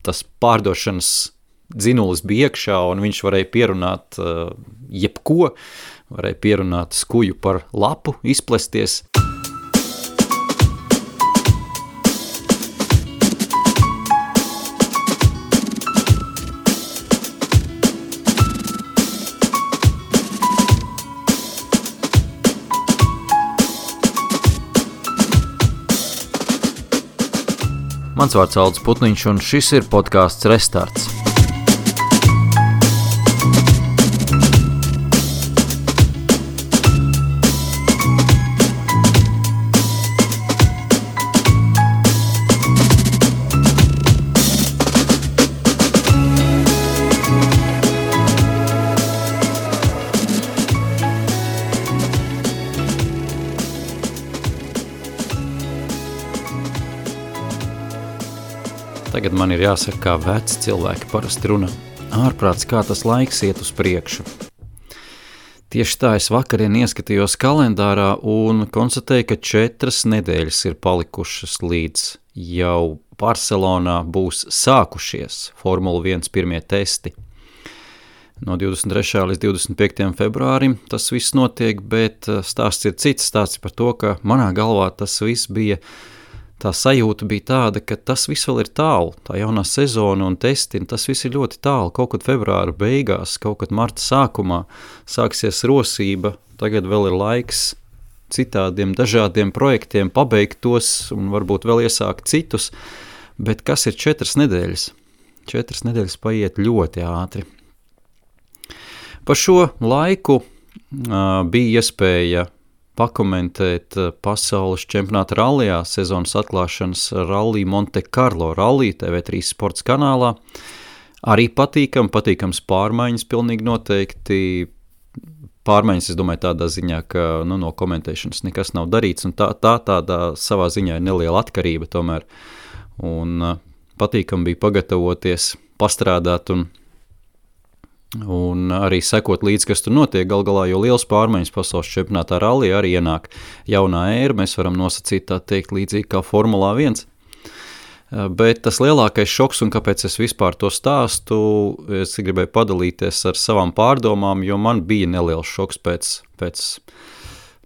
tas pārdošanas dzinulis bija iekšā, un viņš varēja pierunāt jebko, varēja pierunāt skuju par lapu, izplesties. Mans vārds Aldis Putniņš, un šis ir podcasts Restarts. Tagad man ir jāsaka, kā veci cilvēki parasti runā. Ārprāts, kā tas laiks iet uz priekšu. Tieši tā es vakarien ieskatījos kalendārā un konstatēju, ka 4 nedēļas ir palikušas līdz jau Barcelonā būs sākušies Formula 1 pirmie testi. No 23. līdz 25. februārim tas viss notiek, bet stāsts ir cits. Stāsts par to, ka manā galvā tas viss bija. Tā sajūta bija tāda, ka tas viss vēl ir tālu, tā jaunā sezona un testi, tas viss ir ļoti tālu, kaut kad februāra beigās, kaut kad marta sākumā sāksies rosība, tagad vēl ir laiks citādiem dažādiem projektiem pabeigt tos un varbūt vēl iesākt citus, bet kas ir 4 nedēļas? 4 nedēļas paiet ļoti ātri. Pa šo laiku bija iespēja pakomentēt pasaules čempionāta rallijā sezonas atklāšanas Rallija Monte Carlo Rallija TV3 sports kanālā. Arī patīkams pārmaiņas pilnīgi noteikti. Pārmaiņas, es domāju, tādā ziņā, ka no komentēšanas nekas nav darīts, un tādā savā ziņā ir neliela atkarība tomēr. Un patīkam bija pagatavoties, pastrādāt un arī sekot līdz, kas tur notiek. Gal galā, jo liels pārmaiņas pasaules čempionātā rallija arī ienāk jaunā ēra, mēs varam nosacīt tā teikt līdzīgi kā Formulā 1. Bet tas lielākais šoks, un kāpēc es vispār to stāstu, es gribēju padalīties ar savām pārdomām, jo man bija neliels šoks pēc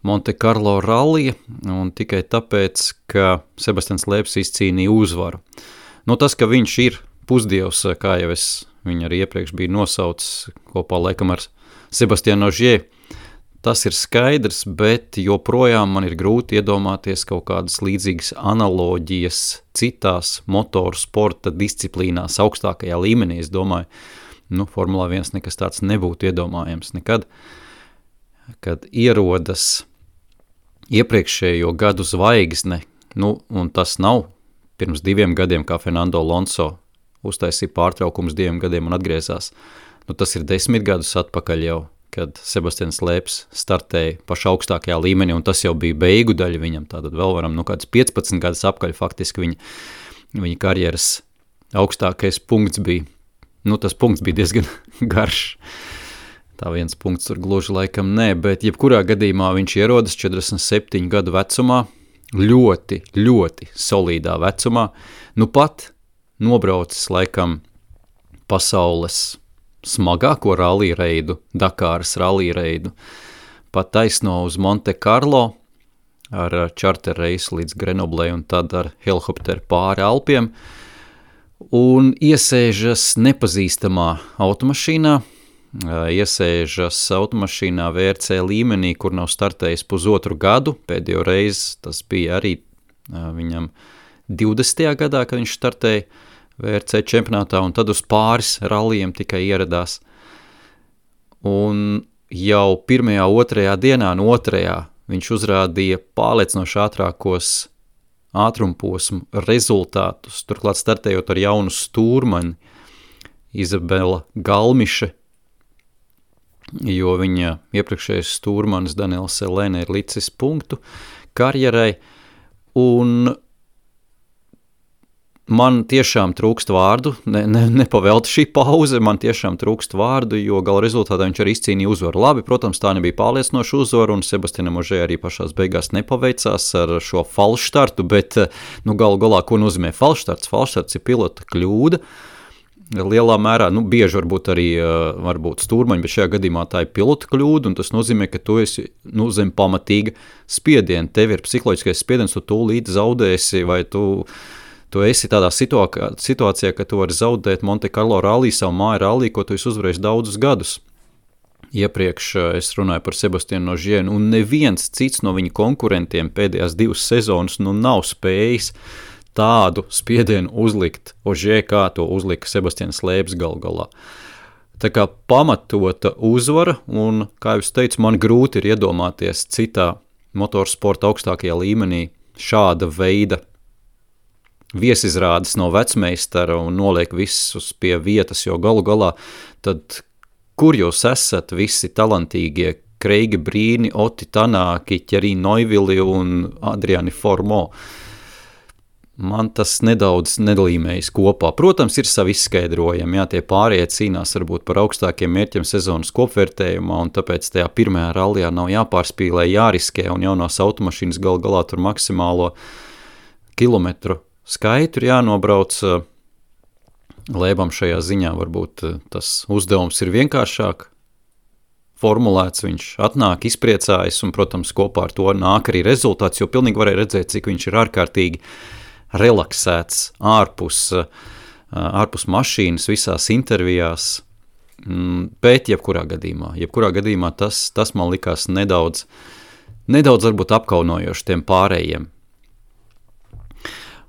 Monte Carlo rallija, un tikai tāpēc, ka Sebastians Loebs izcīnīja uzvaru. Tas, ka viņš ir pusdievs, kā jau es viņu arī iepriekš bija nosaucis kopā laikam ar Sebastianu Ogier. Tas ir skaidrs, bet joprojām man ir grūti iedomāties kaut kādas līdzīgas analoģijas citās motoru sporta disciplīnās augstākajā līmenī. Es domāju, Formulā 1 nekas tāds nebūtu iedomājams nekad, kad ierodas iepriekšējo gadu zvaigzne, un tas nav pirms 2 gadiem, kā Fernando Alonso uztaisīja pārtraukums 2 gadiem un atgriezās. Tas ir 10 gadus atpakaļ jau, kad Sebastians Loebs startēja pašā augstākajā līmenī, un tas jau bija beigu daļa viņam. Tātad vēl varam, kāds 15 gadus apkaļ faktiski viņa karjeras augstākais punkts bija. Tas punkts bija diezgan garš. Tā viens punkts tur gluži laikam nē, bet jebkurā gadījumā viņš ierodas 47 gadu vecumā, ļoti, ļoti solīdā vecumā. Pat nobraucis laikam pasaules smagāko rallija reidu, Dakāras rallija reidu, pat taisno uz Monte Carlo ar čarter reisu līdz Grenoblei un tad ar helikopteru pāri Alpiem un iesēžas nepazīstamā automašīnā, VRC līmenī, kur nav startējis pusotru gadu, pēdējo reizi tas bija arī viņam 20. gadā, kad viņš startēja VRC čempionātā, un tad uz pāris rallijiem tikai ieradās. Un jau 1., 2. dienā no 2. viņš uzrādīja pārliecinoši ātrākos ātrumposmu rezultātus, turklāt startējot ar jaunu stūrmani Izabela Galmiše, jo viņa iepriekšējais stūrmanis Daniels Selene ir licis punktu karjerai, un Man tiešām trūkst vārdu, nepavelta šī pauze, man tiešām trūkst vārdu, jo gala rezultātā viņš arī izcīnīja uzvaru. Labi, protams, tā nebija pārliecinoša uzvaru, un Sebastianam Ožē arī pašās beigās nepaveicās ar šo falšstartu, bet galu galā, ko nozīmē falšstarts? Falšstarts ir pilota kļūda. Lielā mērā, bieži varbūt arī stūrmaņi, bet šajā gadījumā tā ir pilota kļūda, un tas nozīmē, ka tu esi zem pamatīga spiediena. Tev ir psiholoģiskais spiediens, tu tūlīt zaudēsi, vai tu esi tādā situācijā, ka tu vari zaudēt Monte Carlo rallī, savu māju rallī, ko tu esi uzvarējis daudzus gadus. Iepriekš es runāju par Sebastianu Ožē, un neviens cits no viņa konkurentiem pēdējās 2 sezonas nav spējis tādu spiedienu uzlikt Ožē, kā to uzlika Sebastians Loebs galu galā. Tā kā pamatota uzvara, un, kā jūs teicu, man grūti ir iedomāties citā motorsporta augstākajā līmenī šāda veida viesizrādes no vecmeistara un noliek visus pie vietas, jo galu galā tad, kur jūs esat visi talantīgie Kreigi Brīni, Oti Tanāki, Thierry Neuville un Adriani Formo? Man tas nedaudz nedalīmējas kopā. Protams, ir savi izskaidrojumi, tie pārējie cīnās varbūt par augstākiem mērķiem sezonas kopvērtējumā, un tāpēc tajā pirmajā rallijā nav jāpārspīlē, jāriskē, un jaunās automašīnas galu galā tur maksimālo kilometru skaitu ir jānobrauc. Loebam šajā ziņā varbūt tas uzdevums ir vienkāršāk formulēts, viņš atnāk, izpriecājas, un, protams, kopā ar to nāk arī rezultāts, jo pilnīgi varēja redzēt, cik viņš ir ārkārtīgi relaksēts ārpus mašīnas visās intervijās, bet jebkurā gadījumā tas man likās nedaudz varbūt apkaunojoši tiem pārējiem.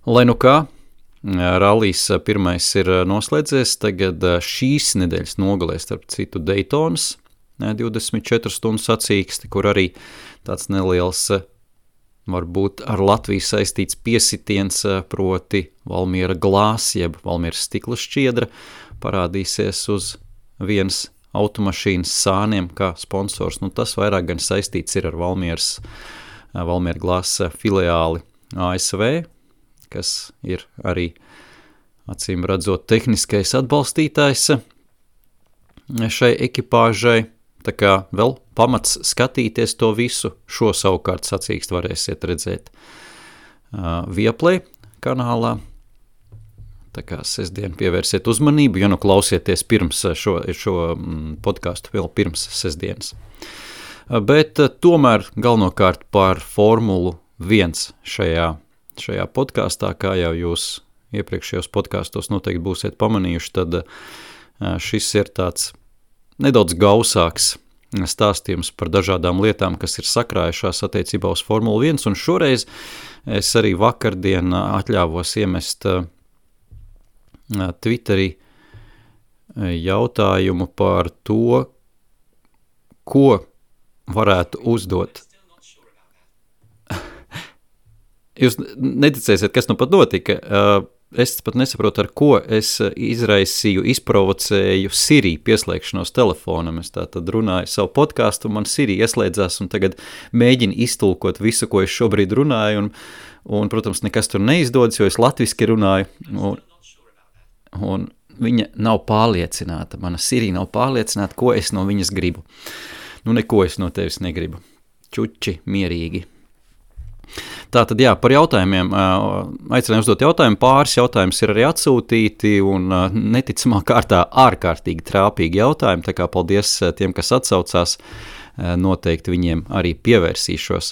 Lai nu kā, rallijs pirmais ir noslēdzies, tagad šīs nedēļas nogalē, starp citu, Daytonas 24 stundu sacīksti, kur arī tāds neliels, varbūt ar Latviju saistīts piesitiens, proti Valmiera glās, jeb Valmieras stikla šķiedra, parādīsies uz vienas automašīnas sāniem kā sponsors. Tas vairāk gan saistīts ir ar Valmiera glās filiāli ASV, kas ir arī, acīm redzot, tehniskais atbalstītājs šai ekipāžai. Tā kā vēl pamats skatīties to visu, šo savukārt sacīkst varēsiet redzēt Viaplay kanālā. Tā kā sestdien pievērsiet uzmanību, ja klausieties pirms šo podcastu vēl pirms sestdienas. Bet tomēr galvenokārt par Formulu 1 šajā podkastā, kā jau jūs iepriekšējos podkastos noteikti būsiet pamanījuši, tad šis ir tāds nedaudz gausāks stāstījums par dažādām lietām, kas ir sakrājušās attiecībā uz Formulu 1, un šoreiz es arī vakardien atļāvos iemest Twitterī jautājumu par to, ko varētu uzdot. Jūs neticēsiet, kas pat notika. Es pat nesaprotu, ar ko es izprovocēju Siri pieslēgšanos telefonam. Es tātad runāju savu podcastu, man Siri ieslēdzās un tagad mēģina iztulkot visu, ko es šobrīd runāju, un protams, nekas tur neizdodas, jo es latviski runāju, un viņa nav pārliecināta, mana Siri nav pārliecināta, ko es no viņas gribu. Neko es no tevis negribu. Čuči, mierīgi. Tātad, par jautājumiem, aicināju uzdot jautājumu, pāris jautājums ir arī atsūtīti un neticamā kārtā ārkārtīgi trāpīgi jautājumi, tā kā paldies tiem, kas atsaucās, noteikti viņiem arī pievērsīšos.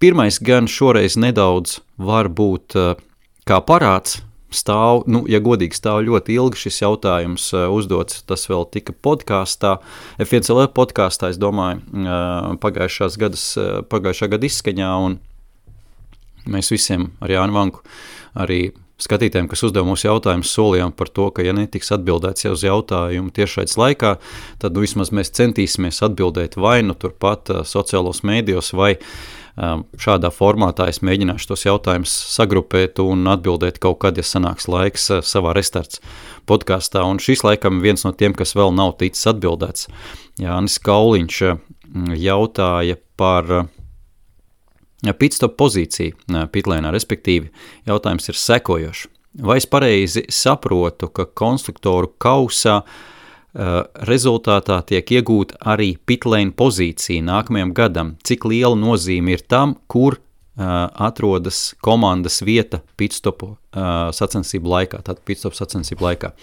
Pirmais gan šoreiz nedaudz var būt kā parāds, stāv, ja godīgi stāv ļoti ilgi šis jautājums uzdots, tas vēl tika podkāstā, F1LV podkāstā, es domāju, pagājušā gada izskaņā, un mēs visiem ar Jānu Vanku, arī skatītājiem, kas uzdeva mūsu jautājumus, solījām par to, ka ja netiks atbildēts jau uz jautājumu tiešraides laikā, tad vismaz mēs centīsimies atbildēt vai turpat sociālos mēdījos, vai šādā formātā es mēģināšu tos jautājumus sagrupēt un atbildēt kaut kad, ja sanāks laiks savā restarts podkastā. Un šis laikam viens no tiem, kas vēl nav ticis atbildēts. Jānis Kauliņš jautāja par Pitstop pozīcija pitlēnā, respektīvi, jautājums ir sekojošs. Vai es pareizi saprotu, ka konstruktoru kausā rezultātā tiek iegūta arī pitlēna pozīcija nākamajam gadam? Cik liela nozīme ir tam, kur atrodas komandas vieta pitstopu sacensību laikā, tātad pitstop sacensību laikā?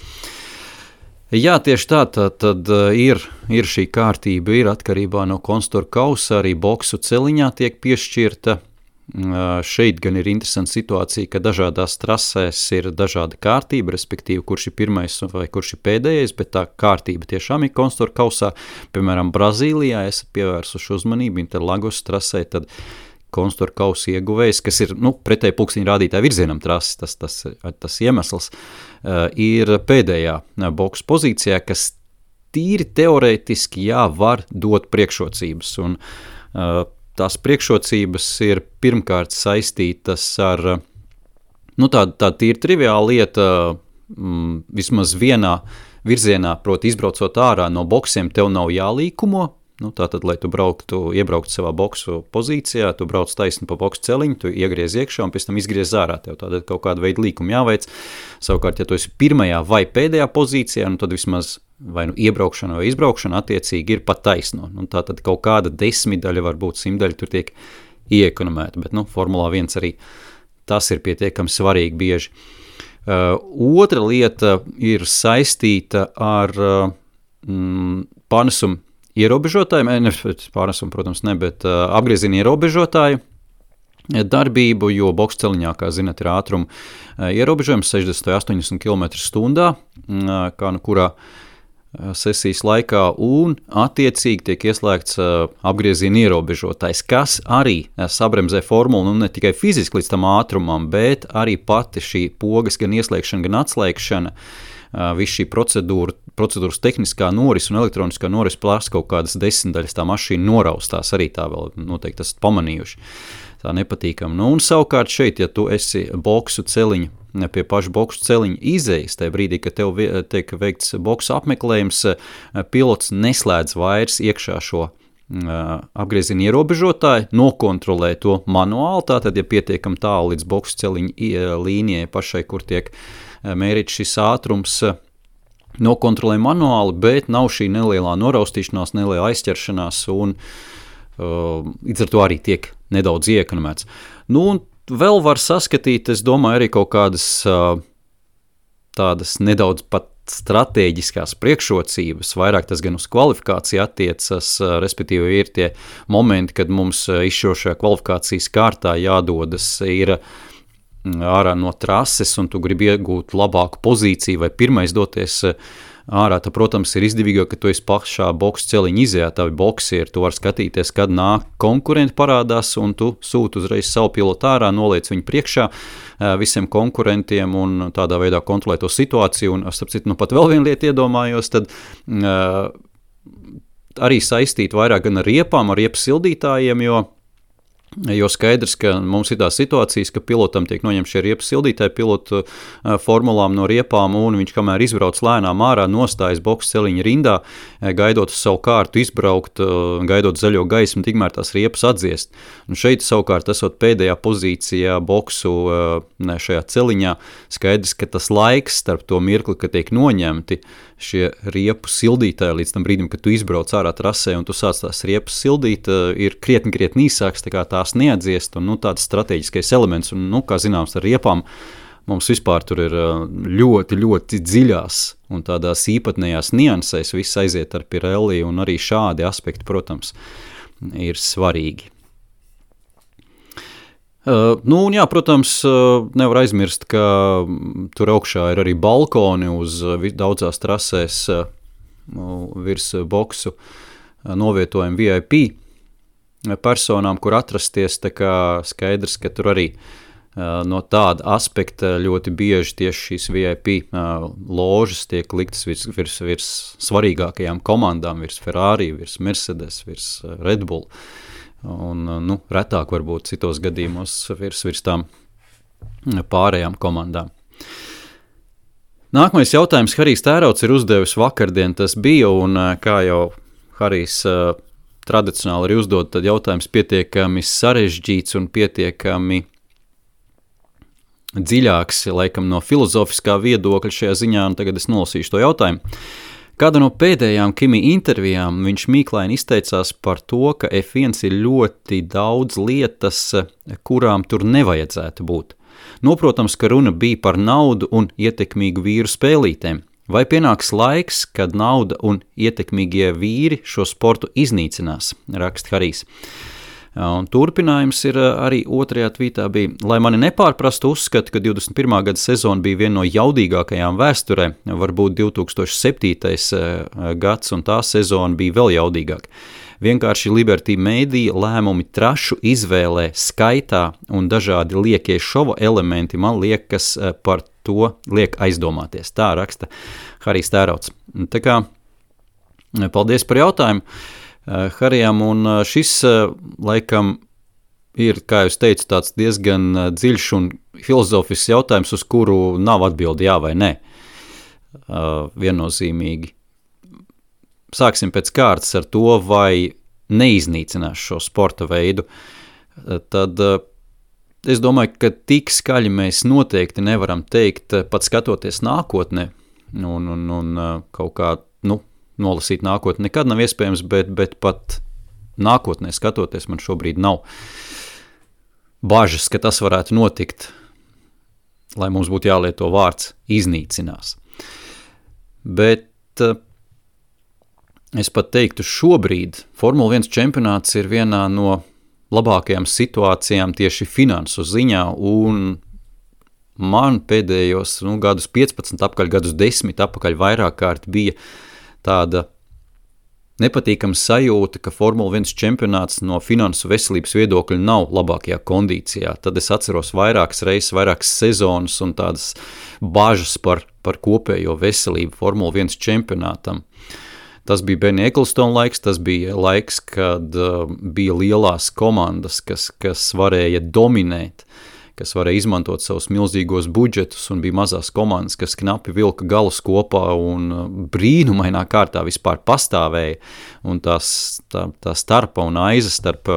Jā, tieši tā, tad ir šī kārtība, ir atkarībā no konstruktoru kausa, arī boksu celiņā tiek piešķirta. Šeit gan ir interesanta situācija, ka dažādās trasēs ir dažāda kārtība, respektīvi, kurš ir pirmais vai kurš ir pēdējais, bet tā kārtība tiešām ir konstruktoru kausā. Piemēram, Brazīlijā esat pievērsuši uzmanību Interlagos trasē, tad konstruktoru kausa ieguvējs, kas ir pretēji pulksteņa rādītāja virzienam trases, tas iemesls, ir pēdējā boksu pozīcijā, kas tīri teorētiski var dot priekšrocības. Un tās priekšrocības ir pirmkārt saistītas ar tāda tīri triviāla lieta, vismaz vienā virzienā, proti izbraucot ārā no boksiem, tev nav jālīkumo. Tātad, lai tu iebrauktu savā boksu pozīcijā, tu brauc taisni pa boksu celiņu, tu iegriez iekšā un pēc tam izgriez ārā. Tev tātad kaut kāda veida līkumu jāveic. Savukārt, ja tu esi pirmajā vai pēdējā pozīcijā, tad vismaz vai iebraukšana vai izbraukšana attiecīgi ir pat taisno. Tātad kaut kāda 10 daļa, varbūt 100 daļa tur tiek ieekonomēta, bet Formulā 1 arī tas ir pietiekami svarīgi bieži. Otra lieta ir saistīta ar pārnesumu ierobežotāju, pārnesumu, protams, ne, bet apgrieziena ierobežotāju darbību, jo boksu celiņā, kā zināt, ir ātruma ierobežojums 60–80 km/h, kā kurā sesijas laikā, un attiecīgi tiek ieslēgts apgrieziena ierobežotājs, kas arī sabremzē formulu, ne tikai fiziski līdz tam ātrumam, bet arī pati šī pogas gan ieslēgšana, gan atslēgšana, viss šī procedūras tehniskā noris un elektroniskā noris prasa kaut kādas 10 daļas, tā mašīna noraustās, arī tā vēl noteikti esat pamanījuši. Tā nepatīkam. Un savukārt šeit, ja tu esi boksu celiņu, pie paša boksu celiņa izejas, tajā brīdī, kad tev tiek veikts boksu apmeklējums, pilots neslēdz vairs iekšā šo apgrieziena ierobežotāju, nokontrolē to manuāli, tātad, ja pietiekam tālu līdz boksu celiņa līnijai pašai, kur tiek mērīts šis ātrums, nokontrolē manuāli, bet nav šī nelielā noraustīšanās, nelielā aizķeršanās, un līdz ar to arī tiek nedaudz ieekonomēts. Un vēl var saskatīt, es domāju, arī kaut kādas tādas nedaudz pat stratēģiskās priekšrocības, vairāk tas gan uz kvalifikāciju attiecas, respektīvi ir tie momenti, kad mums izšķirošajā kvalifikācijas kārtā jādodas ir ārā no trases, un tu gribi iegūt labāku pozīciju vai pirmais doties ārā, tad, protams, ir izdevīgāk, ka tu esi pašā boksu celiņa izējā, tavi boksieri, tu vari skatīties, kad nāk konkurenti parādās, un tu sūti uzreiz savu pilotu ārā, noliec viņu priekšā visiem konkurentiem un tādā veidā kontrolē to situāciju, un, starp citu, pat vēl vienu lietu iedomājos, tad arī saistīt vairāk gan ar riepām, ar riepu sildītājiem, jo skaidrs, ka mums ir tās situācijas, ka pilotam tiek noņemti šie riepu sildītāji pilotu formulām no riepām, un viņš, kamēr izbrauc lēnām ārā, nostājas boksu celiņa rindā, gaidot uz savu kārtu izbraukt, gaidot zaļo gaismu, tikmēr tās riepas atdziest. Un šeit savukārt esot pēdējā pozīcijā boksu šajā celiņā, skaidrs, ka tas laiks starp to mirkli, kad tiek noņemti šie riepu sildītāji līdz tam brīdim, kad tu izbrauc ārā trasē un tu sāc tās riepas sildīt, ir krietni īsāks, tā kā tās neatdziest, un tāds strateģiskais elements, un, kā zināms, ar riepām mums vispār tur ir ļoti dziļās un tādās īpatnējās niansēs viss aiziet ar Pirelli, un arī šādi aspekti, protams, ir svarīgi. Protams, nevar aizmirst, ka tur augšā ir arī balkoni uz daudzās trasēs virs boksu novietojumi VIP personām, kur atrasties, tā kā skaidrs, ka tur arī no tāda aspekta ļoti bieži tieši šīs VIP ložas tiek liktas virs svarīgākajām komandām, virs Ferrari, virs Mercedes, virs Red Bull. Un, retāk varbūt citos gadījumos virs tām pārējām komandām. Nākamais jautājums Harijs Tērauds ir uzdevis vakardien, tas bija, un kā jau Harijs tradicionāli arī uzdod, tad jautājums pietiekami sarežģīts un pietiekami dziļāks, laikam no filozofiskā viedokļa šajā ziņā, un tagad es nolasīšu to jautājumu. Kāda no pēdējām Kimi intervijām viņš mīklaini izteicās par to, ka F1 ir ļoti daudz lietas, kurām tur nevajadzētu būt. Noprotams, ka runa bija par naudu un ietekmīgu vīru spēlītēm. Vai pienāks laiks, kad nauda un ietekmīgie vīri šo sportu iznīcinās, raksta Harijs. Un turpinājums ir arī otrajā tvītā bija, lai mani nepārprastu uzskatu, ka 21. gada sezona bija viena no jaudīgākajām vēsturē, varbūt 2007. gads un tā sezona bija vēl jaudīgāka. Vienkārši Liberty Media lēmumi trašu izvēlē, skaitā un dažādi liekie šova elementi man liekas par to liek aizdomāties. Tā raksta Harijs Tērauds. Tā kā, paldies par jautājumu Harijam, un šis laikam ir, kā jūs teicu, tāds diezgan dziļš un filozofisks jautājums, uz kuru nav atbildi jā vai nē. Viennozīmīgi. Sāksim pēc kārtas ar to, vai neiznīcinās šo sporta veidu. Tad es domāju, ka tik skaļi mēs noteikti nevaram teikt, pat skatoties nākotnē, un kaut kā, nolasīt nākotni nekad nav iespējams, bet pat nākotnē skatoties man šobrīd nav bažas, ka tas varētu notikt, lai mums būtu jālieto vārds iznīcinās. Bet es pat teiktu, šobrīd Formula 1 čempionāts ir vienā no labākajām situācijām tieši finansu ziņā, un man pēdējos gadus 15 apakaļ, gadus 10 apakaļ vairāk kārt bija tāda nepatīkama sajūta, ka Formula 1 čempionāts no finansu veselības viedokļa nav labākajā kondīcijā. Tad es atceros vairākas reizes, vairākas sezonas un tādas bažas par kopējo veselību Formula 1 čempionātam. Tas bija Benny Ecclestone laiks, tas bija laiks, kad bija lielās komandas, kas varēja dominēt, kas varēja izmantot savus milzīgos budžetus, un bija mazās komandas, kas knapi vilka galus kopā un brīnumainā kārtā vispār pastāvēja, un tā starpa un aiza starp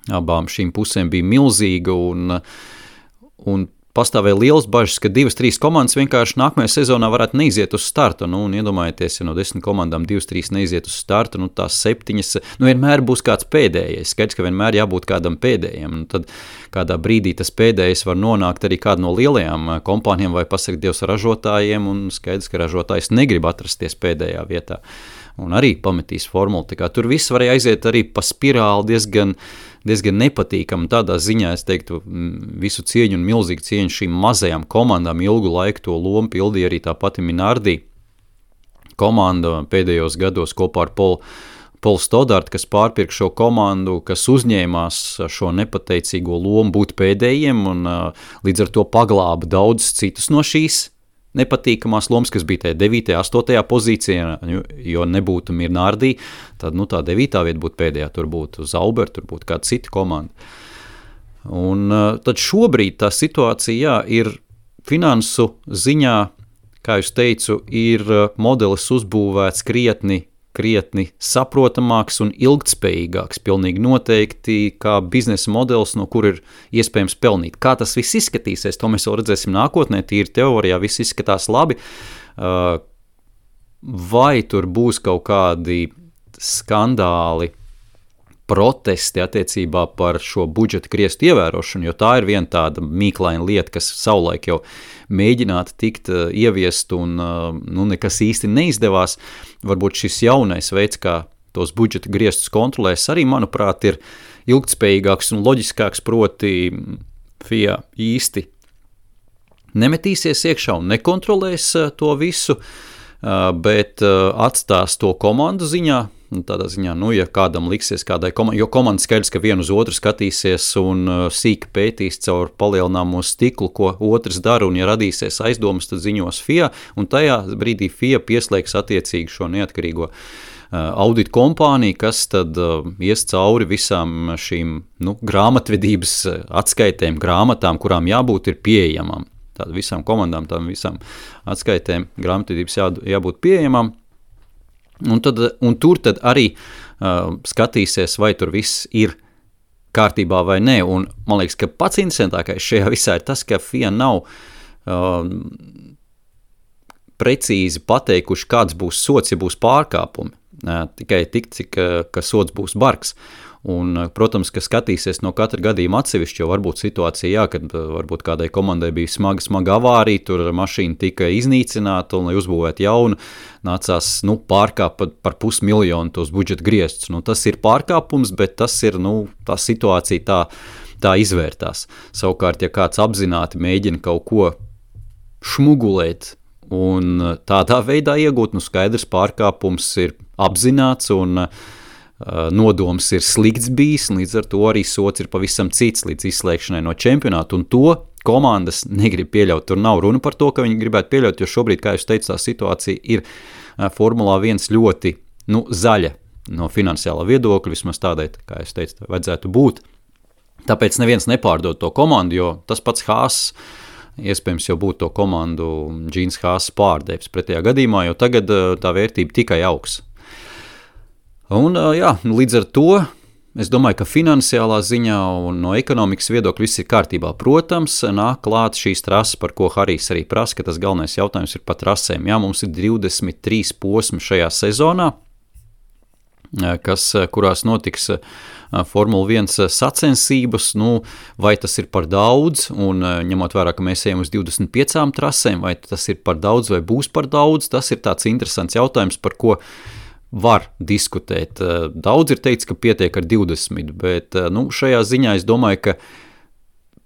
abām šīm pusēm bija milzīga, un pastāvēja liels bažas, ka 2-3 komandas vienkārši nākamajā sezonā varētu neiziet uz startu, un iedomājieties, ja no 10 komandām 2-3 neiziet uz startu, tās 7, vienmēr būs kāds pēdējais, skaidrs, ka vienmēr jābūt kādam pēdējiem, un tad kādā brīdī tas pēdējais var nonākt arī kādu no lielajām kompānijām vai pasakt Dievs ražotājiem, un skaidrs, ka ražotājs negrib atrasties pēdējā vietā, un arī pametīs formulu, tā kā tur viss varēja aiziet arī pa spirāli diezgan nepatīkami. Tādā ziņā es teiktu visu cieņu un milzīgu cieņu šīm mazajām komandām ilgu laiku to lomu pildīja arī tā pati Minardi komanda pēdējos gados kopā ar Paul Stoddart, kas pārpirka šo komandu, kas uzņēmās šo nepateicīgo lomu būt pēdējiem un līdz ar to paglāba daudz citus no šīs nepatīkamās lomas, kas bija tajā 9. 8. pozīcijā, jo nebūtu Minardi, tad tā 9. vieta būtu pēdējā, tur būtu Zauber, tur būtu kāda cita komanda. Un tad šobrīd tā situācija, ir finansu ziņā, kā jūs teicu, ir modelis uzbūvēts krietni saprotamāks un ilgtspējīgāks, pilnīgi noteikti, kā biznesa modelis, no kur ir iespējams pelnīt. Kā tas viss izskatīsies, to mēs vēl redzēsim nākotnē, tīri teorijā viss izskatās labi, vai tur būs kaut kādi skandāli, protesti attiecībā par šo budžeta griestu ievērošanu, jo tā ir viena tāda mīklaina lieta, kas savulaik jau mēģinātu tikt ieviest un nekas īsti neizdevās. Varbūt šis jaunais veids, kā tos budžeta griestus kontrolēs, arī, manuprāt, ir ilgtspējīgāks un loģiskāks, proti FIA īsti nemetīsies iekšā un nekontrolēs to visu, bet atstās to komandu ziņā. Tādā ziņā, ja kādam liksies kādai komandai, jo komanda skaidrs, ka vienu uz otru skatīsies un sīki pētīs caur palielināmo stiklu, ko otrs dara, un ja radīsies aizdomas, tad ziņos FIA, un tajā brīdī FIA pieslēgs attiecīgi šo neatkarīgo audit kompāniju, kas tad ies cauri visām šīm grāmatvedības atskaitēm, grāmatām, kurām jābūt ir pieejamām. Tātad visām komandām, tām visām atskaitēm grāmatvedības jābūt pieejamām. Un tur tad arī skatīsies, vai tur viss ir kārtībā vai nē. Un man liekas, ka pats interesantākais šajā visā ir tas, ka FIA nav precīzi pateikuši, kāds būs sots, ja būs pārkāpumi. Tikai tik, cik ka sots būs bargs. Un, protams, ka skatīsies no katra gadījuma atsevišķi, jo varbūt situācija, kad varbūt kādai komandai bija smaga avārija, tur mašīna tika iznīcināta, un, lai uzbūvētu jaunu, nācās pārkāpt par 500 000 tos budžeta griestus. Tas ir pārkāpums, bet tas ir, tā situācija tā izvērtās. Savukārt, ja kāds apzināti mēģina kaut ko šmugulēt un tādā veidā iegūt, skaidrs pārkāpums ir apzināts un nodoms ir slikts bijis, līdz ar to arī sots ir pavisam cits līdz izslēgšanai no čempionāta, un to komandas negrib pieļaut. Tur nav runa par to, ka viņi gribētu pieļaut, jo šobrīd, kā jūs teicu, tā situācija ir Formulā 1 ļoti zaļa no finansiālā viedokļa, vismaz tādai, kā jūs teicu, vajadzētu būt. Tāpēc neviens nepārdod to komandu, jo tas pats Haas iespējams jau būtu to komandu Džīns Haas pārdevis pretējā gadījumā, jo tagad tā vērtība tikai augs. Un, līdz ar to es domāju, ka finansiālā ziņā un no ekonomikas viedokļa viss ir kārtībā. Protams, nāk klāt šīs trases, par ko Harijs arī prasa, ka tas galvenais jautājums ir par trasēm. Jā, mums ir 23 posmi šajā sezonā, kurās notiks Formula 1 sacensības, vai tas ir par daudz, un ņemot vērā, ka mēs ejam uz 25 trasēm, vai tas ir par daudz vai būs par daudz, tas ir tāds interesants jautājums, par ko var diskutēt. Daudz ir teikts, ka pietiek ar 20, bet šajā ziņā es domāju, ka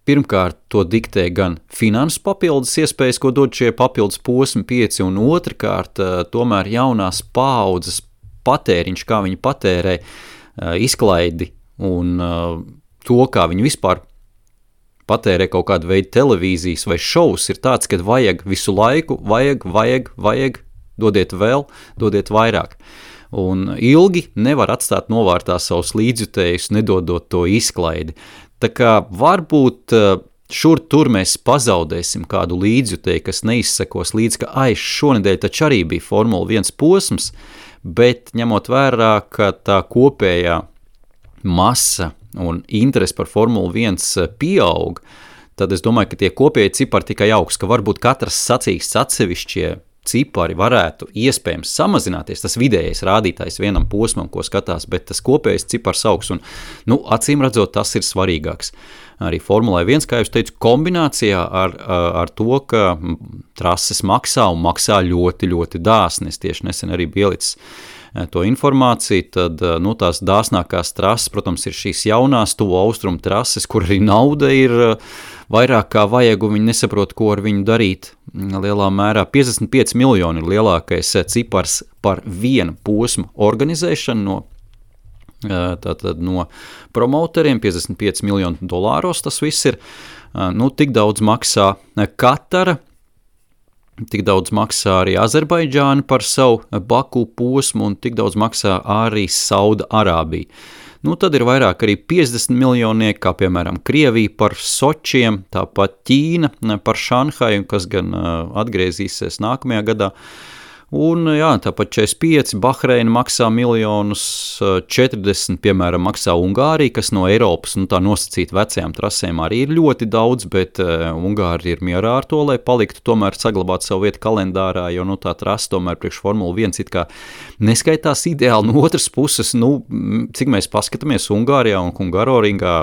pirmkārt to diktē gan finanses papildus iespējas, ko dod šie papildus posmi 5, un otrkārt tomēr jaunās paaudzes patēriņš, kā viņi patērē izklaidi un to, kā viņi vispār patērē kaut kādu veidu televīzijas vai šovus, ir tāds, ka vajag visu laiku, vajag, dodiet vēl, dodiet vairāk. Un ilgi nevar atstāt novārtā savus līdzjutējus, nedodot to izklaidi. Tā kā varbūt šur tur mēs pazaudēsim kādu līdzjutēju, kas neizsekos līdz, ka šonedēļ taču arī bija Formula 1 posms, bet ņemot vērā, ka tā kopējā masa un interesi par Formula 1 pieaug, tad es domāju, ka tie kopēji cipari tikai augs, ka varbūt katrs sacīksts atsevišķie cipari varētu iespējams samazināties, tas vidējais rādītājs vienam posmam, ko skatās, bet tas kopējais cipars augs, un, acīm redzot, tas ir svarīgāks. Arī Formulai 1, kā jūs teicu, kombinācijā ar to, ka trases maksā un maksā ļoti, ļoti dāsni. Es tieši nesen arī biju ielicis to informāciju, tad tās dāsnākās trases, protams, ir šīs jaunās tuvo austrumu trases, kur arī nauda ir vairāk kā vajag, un viņi nesaprot, ko ar viņu darīt. Lielā mērā 55 miljoni ir lielākais cipars par vienu posmu organizēšanu no promoteriem, 55 miljonu dolāros tas viss ir. Tik daudz maksā Katara, tik daudz maksā arī Azerbaidžāna par savu Baku posmu, un tik daudz maksā arī Sauda Arābija. Tad ir vairāk arī 50 miljonieki, kā piemēram Krievija par Sočiem, tāpat Ķīna par Šanhaju, kas gan atgriezīsies nākamajā gadā. Un tāpat 45, Bahreina maksā miljonus, 40, piemēram, maksā Ungārija, kas no Eiropas, tā nosacīt vecajām trasēm arī ir ļoti daudz, bet Ungāri ir mierā ar to, lai paliktu tomēr saglabāt savu vietu kalendārā, jo tā trasa tomēr priekš Formula 1 it kā neskaitās ideāli. No otras puses, cik mēs paskatāmies Ungārijā un Hungaroringā,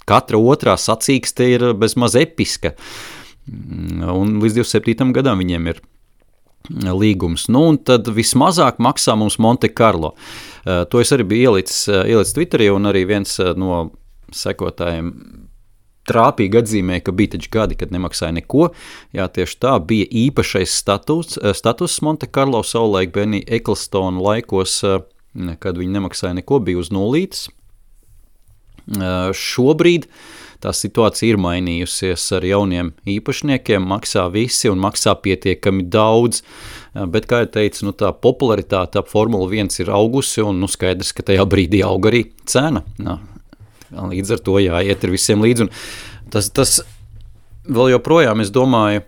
katra otrā sacīkste ir bezmaz episka, un līdz 27. gadam viņiem ir līgums. Un tad vismazāk maksā mums Monte Carlo. To es arī biju ielicis Twitterī, un arī viens no sekotājiem trāpīgi atzīmēja, ka bija taču gadi, kad nemaksāja neko. Jā, tieši tā bija īpašais status Monte Carlo savulaik Benny Ecclestone laikos, kad viņi nemaksāja neko, bija uz nulītes. Šobrīd tā situācija ir mainījusies ar jauniem īpašniekiem, maksā visi un maksā pietiekami daudz, bet, kā jau teicu, tā popularitāte ap Formula 1 ir augusi, un skaidrs, ka tajā brīdī aug arī cena. Līdz ar to jāiet ar visiem līdzi, un tas vēl joprojām, es domāju,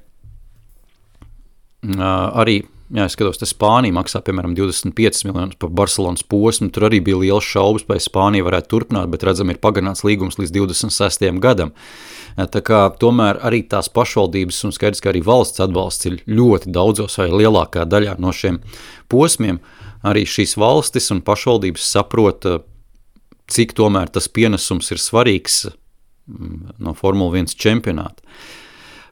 arī es skatos, te Spānija maksā, piemēram, 25 miljonus par Barcelonas posmu, tur arī bija liels šaubas, vai Spānija varētu turpināt, bet redzam, ir pagarināts līgums līdz 26. gadam. Tā kā tomēr arī tās pašvaldības un skaidrs, ka arī valsts atbalsts ir ļoti daudzos vai lielākā daļā no šiem posmiem. Arī šīs valstis un pašvaldības saprot, cik tomēr tas pienesums ir svarīgs no Formula 1 čempionāta.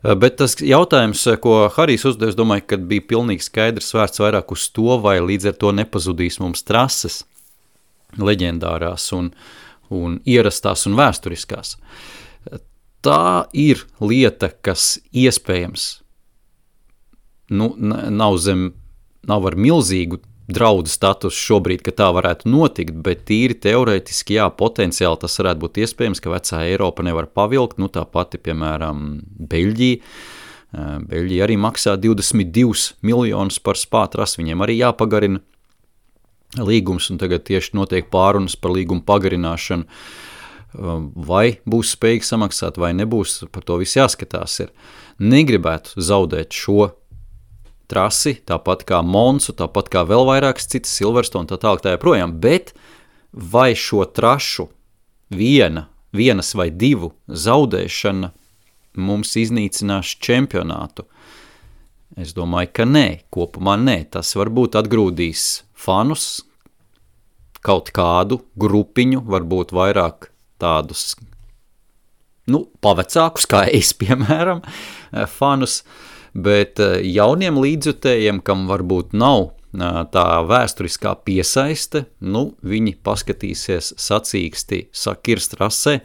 Bet tas jautājums, ko Harijs uzdev, es domāju, ka bija pilnīgi skaidrs vērts vairāk uz to, vai līdz ar to nepazudīs mums trases leģendārās un ierastās un vēsturiskās. Tā ir lieta, kas iespējams nav ar milzīgu draudu status šobrīd, ka tā varētu notikt, bet tīri teorētiski, jā, potenciāli tas varētu būt iespējams, ka vecā Eiropa nevar pavilkt, tā pati, piemēram, Beļģija. Beļģija arī maksā 22 miljonus par Spā trasi, viņiem arī jāpagarina līgums, un tagad tieši notiek pārunas par līgumu pagarināšanu. Vai būs spējīgi samaksāt, vai nebūs, par to viss jāskatās ir. Negribētu zaudēt šo trasi, tāpat kā Monsu, tāpat kā vēl vairākas citas Silverstone, tā tālāk tā joprojām, bet vai šo trašu vienas vai divu zaudēšana mums iznīcinās čempionātu? Es domāju, ka nē, kopumā nē, tas varbūt atgrūdīs fanus, kaut kādu grupiņu, varbūt vairāk tādus, pavecākus, kā es, piemēram, fanus, bet jauniem līdzjutējiem, kam varbūt nav tā vēsturiskā piesaiste, viņi paskatīsies sacīksti sakirst trasē,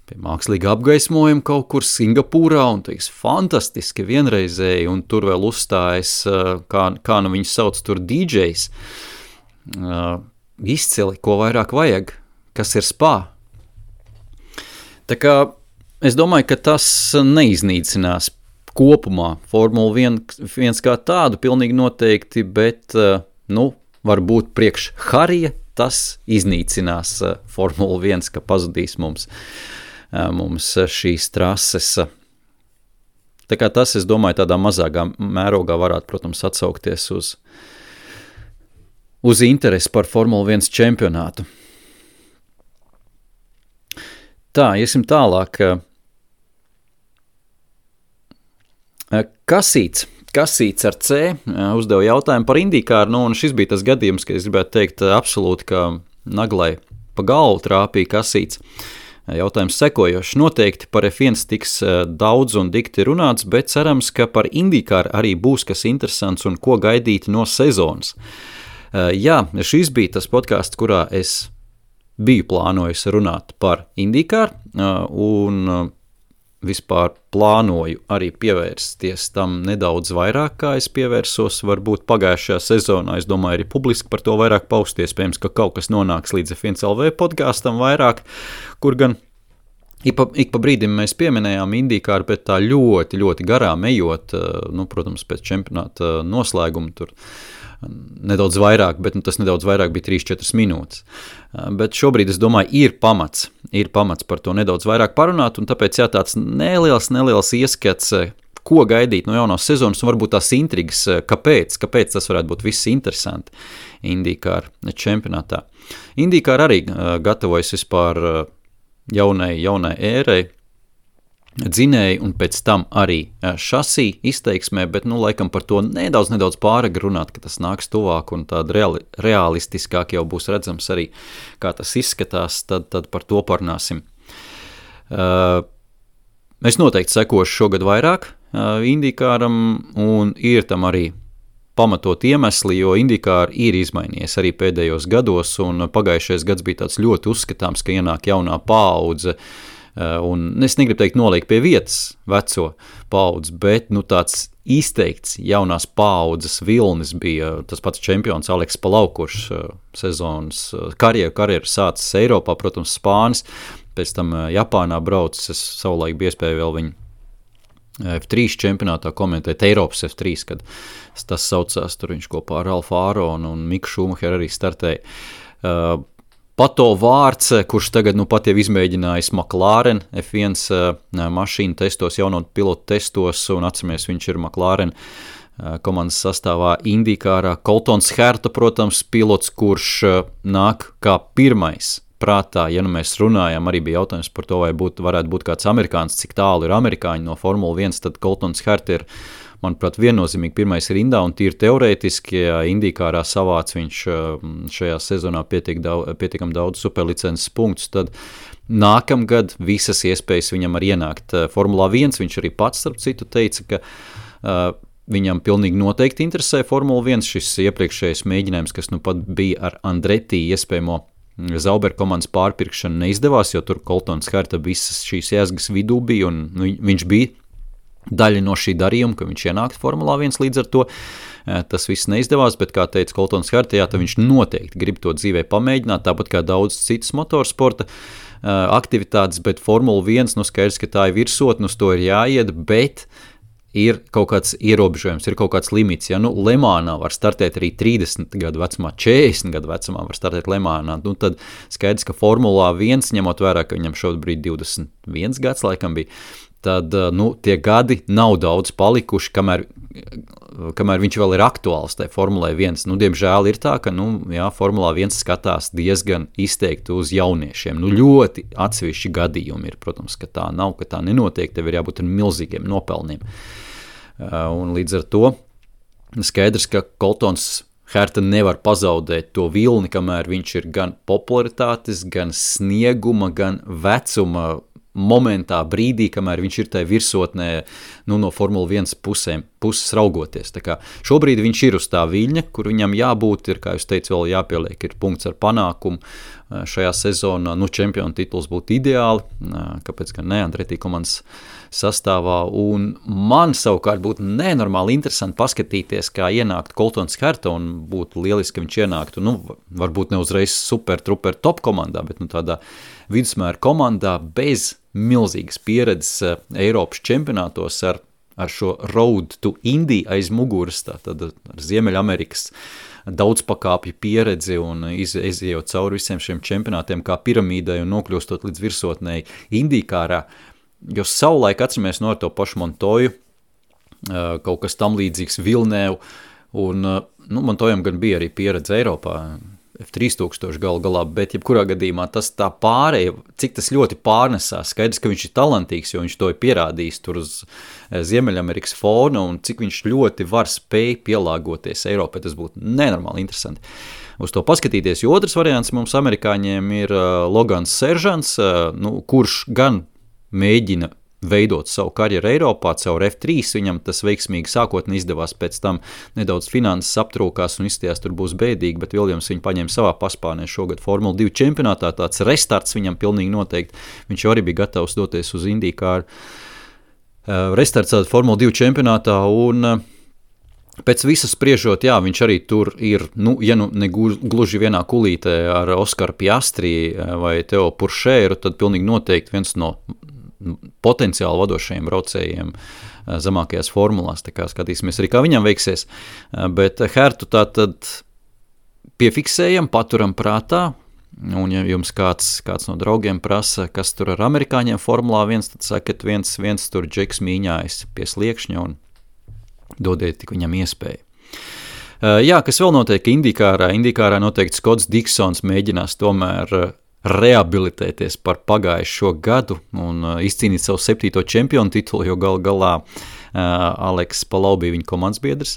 pie mākslīga apgaismojuma kaut kur Singapūrā un teiks, fantastiski vienreizēji, un tur vēl uzstājas, kā viņus sauc tur DJs, izcili, ko vairāk vajag, kas ir Spā. Tā kā es domāju, ka tas neiznīcinās kopumā Formula 1 kā tādu pilnīgi noteikti, bet, varbūt priekš Harija tas iznīcinās Formula 1, ka pazudīs mums šīs trases. Tā kā tas, es domāju, tādā mazākā mērogā varētu, protams, atsaukties uz interesi par Formula 1 čempionātu. Tā, iesim tālāk. Kasīts ar C uzdeva jautājumu par IndyCar, un šis bija tas gadījums, ka es gribētu teikt absolūti, ka naglai pa galvu trāpīja Kasīts. Jautājums sekojošs. Noteikti par F1 tiks daudz un dikti runāts, bet cerams, ka par IndyCar arī būs kas interesants un ko gaidīt no sezonas. Jā, šis bija tas podcasts, kurā es biju plānojis runāt par IndyCar, un vispār plānoju arī pievērsties tam nedaudz vairāk, kā es pievērsos varbūt pagājušajā sezonā. Es domāju, arī publiski par to vairāk paust, iespējams, ka kaut kas nonāks līdz F1 LV podkastam vairāk, kur gan ik pa brīdim mēs pieminējām IndyCar, bet tā ļoti, ļoti garām ejot, protams, pēc čempionāta noslēguma tur nedaudz vairāk, bet tas nedaudz vairāk bija 3-4 minūtes. Bet šobrīd, es domāju, ir pamats par to nedaudz vairāk parunāt, un tāpēc tāds neliels ieskats, ko gaidīt no jaunās sezonas, un varbūt tās intrigas, kāpēc tas varētu būt viss interesanti IndyCar čempionātā. IndyCar arī gatavojas vispār jaunai ērai, dzinēji un pēc tam arī šasī izteiksmē, bet laikam par to nedaudz pāragri runāt, ka tas nāks tuvāk un tāda realistiskāk jau būs redzams arī, kā tas izskatās, tad par to parunāsim. Es noteikti sekošu šogad vairāk IndyCaram, un ir tam arī pamatot iemesli, jo IndyCar ir izmainījies arī pēdējos gados, un pagājušais gads bija tāds ļoti uzskatāms, ka ienāk jaunā paudze, un es negribu teikt noliek pie vietas veco paudzi, bet tāds izteikts jaunās paudzes vilnis bija tas pats čempions Aleks Palau, kurš sezonas karjeru sācis Eiropā, protams, Spānis, pēc tam Japānā braucis, es savulaik bija iespēja vēl viņu F3 čempionātā komentēt, Eiropas F3, kad tas saucās, tur viņš kopā ar Ralfu Āronu un Miku Šumacheru arī startēja. Pato Vārts, kurš tagad pat jau izmēģinājis McLaren F1 mašīnu testos, jauno pilotu testos, un atceramies, viņš ir McLaren komandas sastāvā IndyCarā. Coltons Herta, protams, pilots, kurš nāk kā pirmais prātā, ja nu mēs runājam, arī bija jautājums par to, vai varētu būt kāds amerikāns, cik tālu ir amerikāņi no Formula 1, tad Coltons Herta ir, manuprāt, viennozīmīgi pirmais rindā, un tīri teorētiski, ja IndyCarā savāc viņš šajā sezonā pietiekam daudz superlicences punktus, tad nākamgad visas iespējas viņam arī ienākt Formulā 1, viņš arī pats, starp citu, teica, ka viņam pilnīgi noteikti interesē Formula 1, šis iepriekšējais mēģinājums, kas nu pat bija ar Andretti iespējamo Zauber komandas pārpirkšanu neizdevās, jo tur Coltons Herta visas šīs jēzgas vidū bija, un viņš bija daļa no šī darījuma, ka viņš ienākt Formulā 1 līdz ar to. Tas viss neizdevās, bet, kā teica Coltons Herta, tad viņš noteikti grib to dzīvē pamēģināt, tāpat kā daudz citas motorsporta aktivitātes, bet Formula 1, skaidrs, ka tā ir virsotne, uz to ir jāiet, bet ir kaut kāds ierobežojums, ir kaut kāds limits. Ja Lemānā var startēt arī 30 gadu vecumā, 40 gadu vecumā var startēt Lemānā, tad skaidrs, ka Formulā 1, ņemot vērā, ka viņam šobrīd 21 gads laikam bija, tad tie gadi nav daudz palikuši, kamēr viņš vēl ir aktuāls tajā Formulē 1. Diemžēl ir tā, ka Formulā 1 skatās diezgan izteikti uz jauniešiem. Ļoti atsevišķi gadījumi ir, protams, ka tā nav, ka tā nenotiek, tev ir jābūt ar milzīgiem nopelniem. Un līdz ar to skaidrs, ka Coltons Herta nevar pazaudēt to vilni, kamēr viņš ir gan popularitātes, gan snieguma, gan vecuma momentā, brīdī, kamēr viņš ir tajā virsotnē no Formula 1 puses raugoties. Tā kā šobrīd viņš ir uz tā viļņa, kur viņam jābūt, ir, kā jūs teicu, vēl jāpieliek, ir punkts ar panākumu šajā sezonā. Čempionu tituls būtu ideāli, kāpēc gan ne, Andretti komandas sastāvā, un man savukārt būtu nenormāli interesanti paskatīties, kā ienākt Coltons Herta, un būtu lieliski, ka viņš ienāktu, varbūt ne uzreiz super truper top komandā, bet tādā vidusmēra komandā bez milzīgas pieredzes Eiropas čempionātos ar šo Road to Indy aiz muguras, tātad ar Ziemeļamerikas daudzpakāpju pieredzi un izejot cauri visiem šiem čempionātiem kā piramīdai un nokļūstot līdz virsotnei IndyCarā, jo savulaik atceramies ar to pašu Montoju, kaut kas tam līdzīgs Vilnēvu, un Montojam gan bija arī pieredze Eiropā, F3000 galā, bet jebkurā gadījumā tas tā pārēja, cik tas ļoti pārnesās, skaidrs, ka viņš ir talantīgs, jo viņš to ir pierādījis tur uz Ziemeļamerikas fona, un cik viņš ļoti var spēj pielāgoties Eiropai, tas būtu nenormāli interesanti uz to paskatīties, jo otrs variants mums amerikāņiem ir Logans Seržants, kurš gan mēģina veidot savu karjeru Eiropā, caur F3, viņam tas veiksmīgi sākotnē izdevās, pēc tam nedaudz finanses aptrūkās un izstījās tur būs bēdīgi, bet Viljams viņu paņēma savā paspārnē šogad Formula 2 čempionātā, tāds restarts viņam pilnīgi noteikti, viņš jau arī bija gatavs doties uz IndyCar, restarts Formula 2 čempionātā, un pēc visas spriežot, viņš arī tur ir, ja ne gluži vienā kulītē ar Oskaru Piastri vai Teo Puršēru, tad pilnīgi noteikti viens no potenciāli vadošajiem braucējiem zemākajās formulās, tā kā skatīsimies arī, kā viņam veiksies, bet Hertu tātad piefiksējam, paturam prātā, un ja jums kāds no draugiem prasa, kas tur ar amerikāņiem Formulā 1, tad sakat, viens tur Džeks mīņājas pie sliekšņa un dodiet tik viņam iespēju. Kas vēl notiek IndyCarā noteikti Skots Diksons mēģinās tomēr rehabilitēties par pagājušo gadu un izcīnīt savu 7. čempionu titulu, jo galā Aleks Palau bija viņa komandas biedrs.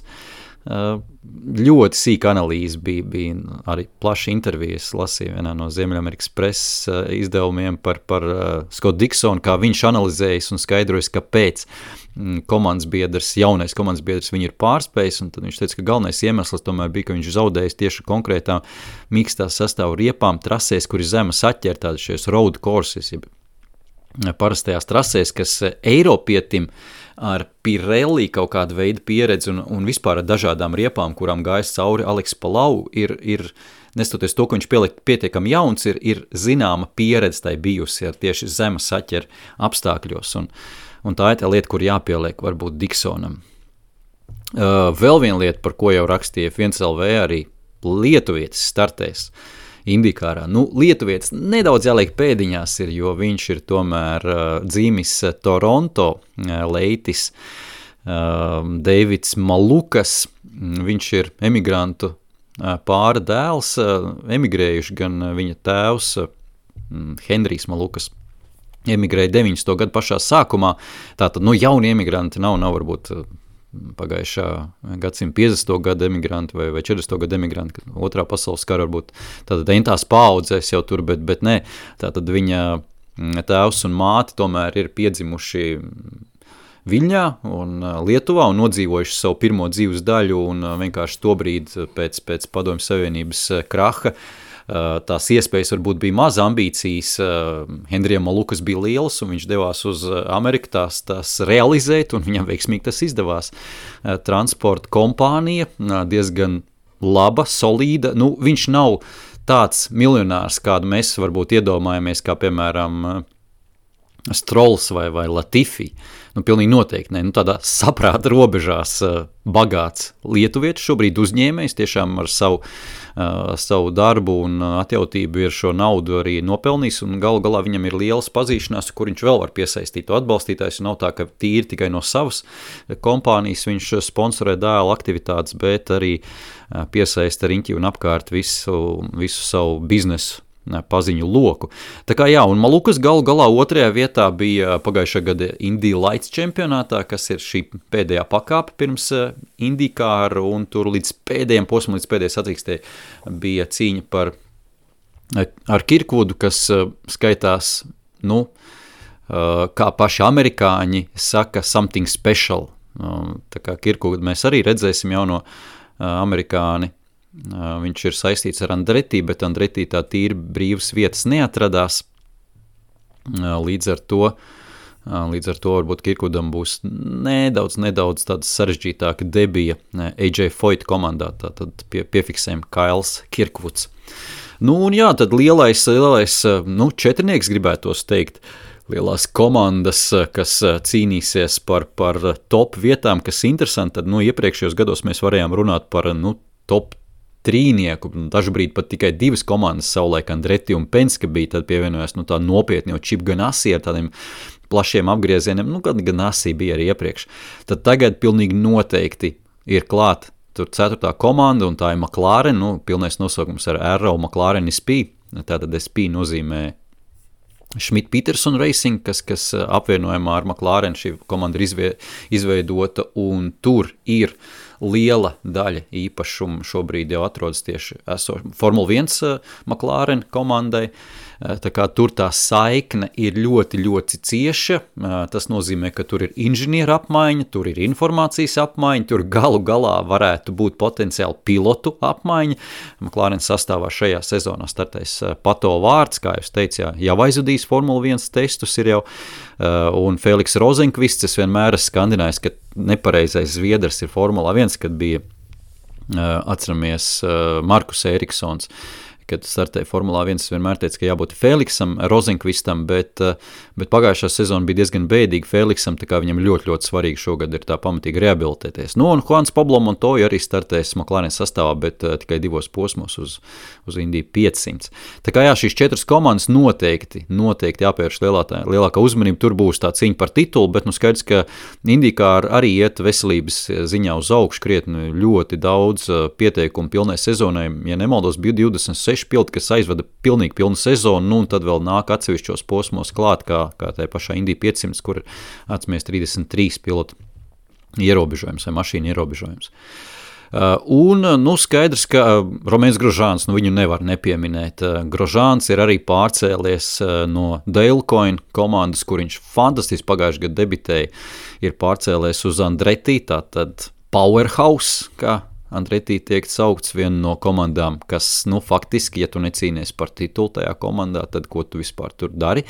Ļoti sīka analīze bija arī plaša intervijas, lasīja vienā no Ziemeļamerikas preses izdevumiem par Skotu Diksonu, kā viņš analizējis un skaidrojas, kāpēc jaunais komandas biedrs viņu ir pārspējis, un tad viņš teica, ka galvenais iemesls tomēr bija, ka viņš zaudējis tieši konkrētām mīkstās sastāvu riepām trasēs, kur ir zema saķer, tādi šies road courses, parastajās trasēs, kas Eiropietim ar Pirelli kaut kādu veidu pieredzi un vispār ar dažādām riepām, kurām gājas cauri Aleks Palau, ir nestoties to, ka viņš pietiekami jauns, ir zināma pieredze tai bijusi ar tieši zema saķer apstākļos, un tā ir tā lieta, kur jāpieliek varbūt Diksonam. Vēl viena lieta, par ko jau rakstīja F1LV, arī lietuvietis startēs Indikārā. Lietuvietis nedaudz jāliek pēdiņās ir, jo viņš ir tomēr dzīmis Toronto, leitis Deivids Malukas. Viņš ir emigrantu pāra dēls, emigrējuši gan viņa tēvs Henrijs Malukas. Emigrēja 90. gadu pašā sākumā, tātad jauni emigranti nav varbūt pagājušā gadsimta 50. gada emigranti vai 40. gada emigranti, otrā pasaules kara varbūt tātad entās paaudzēs jau tur, bet nē, tātad viņa tēvs un māte tomēr ir piedzimuši Viļņā un Lietuvā un nodzīvojuši savu pirmo dzīves daļu un vienkārši tobrīd pēc Padomju Savienības kraha tās iespējas varbūt bija maz, ambīcijas Henrijam Malukas bija lielas un viņš devās uz Ameriku tās realizēt un viņam veiksmīgi tas izdevās. Transporta kompānija diezgan laba, solīda, viņš nav tāds miljonārs, kādu mēs varbūt iedomājamies, kā piemēram Strolls vai Latifi. Pilnīgi noteikti ne. Tādā saprāta robežās bagāts lietuvietis, šobrīd uzņēmējs, tiešām ar savu darbu un atjautību ir šo naudu arī nopelnījis, un galu galā viņam ir lielas pazīšanās, kur viņš vēl var piesaistīt to atbalstītājs, un nav tā, ka tīri tikai no savas kompānijas viņš sponsorē dēla aktivitātes, bet arī piesaista riņķi un apkārt visu savu biznesu paziņu loku. Tā kā jā, un Malukas galu galā otrajā vietā bija pagājušā gada Indy Lights čempionātā, kas ir šī pēdējā pakāpe pirms Indīkāra, un tur līdz pēdējiem posmam, līdz pēdējai sacīkstē bija cīņa ar Kirkvudu, kas skaitās, kā paši amerikāņi saka, something special. Tā kā Kirkvudu mēs arī redzēsim jauno amerikāni. Viņš ir saistīts ar Andretti, bet Andretti tā tīri brīvas vietas neatradās. Līdz ar to varbūt Kirkvudam būs nedaudz tāda sarežģītāka debija AJ Foyt komandā, tātad piefiksējam Kails Kirkvuds. Un jā, tad lielais četrnieks gribētos teikt, lielās komandas, kas cīnīsies par top vietām, kas interesanti, tad iepriekšējos gados mēs varējām runāt par top trīnieku, dažbrīd pat tikai divas komandas savulaik Andretti un Penske bija, tad pievienojās tā nopietni, jo Chip Ganassi ar tādiem plašiem apgriezieniem, gan Ganassi bija arī iepriekš. Tad tagad pilnīgi noteikti ir klāt tur 4. komanda, un tā ir McLaren, pilnais nosaukums ar Arrow McLaren SP, tātad SP nozīmē Schmidt-Peterson Racing, kas apvienojumā ar McLaren šī komanda ir izveidota, un tur ir liela daļa īpašumu šobrīd jau atrodas tieši Formula 1 McLaren komandai, tā kā tur tā saikne ir ļoti, ļoti cieša, tas nozīmē, ka tur ir inženieru apmaiņa, tur ir informācijas apmaiņa, tur galu galā varētu būt potenciāli pilotu apmaiņa. McLaren sastāvā šajā sezonā startēs Pato Vārds, kā jūs teicāt, jau aizvadījis Formula 1 testus ir jau, un Feliks Rozenkvists, es vienmēr esmu skandinājis, ka nepareizais zviedrs ir Formula 1, kad bija, atceramies, Markus Eriksons, kad startēja Formulā 1, es vienmēr teicu, ka jābūt Feliksam, Rozenkvistam, bet pagājušā sezona bija diezgan bēdīga Feliksam, tā kā viņam ļoti, ļoti svarīgi šogad ir tā pamatīgi rehabilitēties. Un Juans Pablo Montoya arī startēs McLaren sastāvā, bet tikai 2 posmos uz Indy 500. Tā kā jā, šīs 4 komandas noteikti jāpievērš lielākā uzmanība, tur būs tā cīņa par titulu, bet skaidrs, ka Indīkāra arī iet veselības ziņā uz augšu krietni, ļoti daudz pieteikumu pilnai sezonai, ja nemaldos, bija 26 piloti, kas aizvada pilnīgi pilnu sezonu, un tad vēl nāk atsevišķos posmos klāt, kā tajā pašā Indy 500, kur atcemies 33 pilotu ierobežojums vai mašīnu ierobežojums. Skaidrs, ka Romains Grosjeans, viņu nevar nepieminēt. Grosjeans ir arī pārcēlies no Dalecoin komandas, kur viņš fantastiski pagājušajā gadā debitēja, ir pārcēlies uz Andretti, tātad Powerhouse, kā Andretti tiek saukts viena no komandām, kas, faktiski, ja tu necīnies par titulu tajā komandā, tad ko tu vispār tur dari?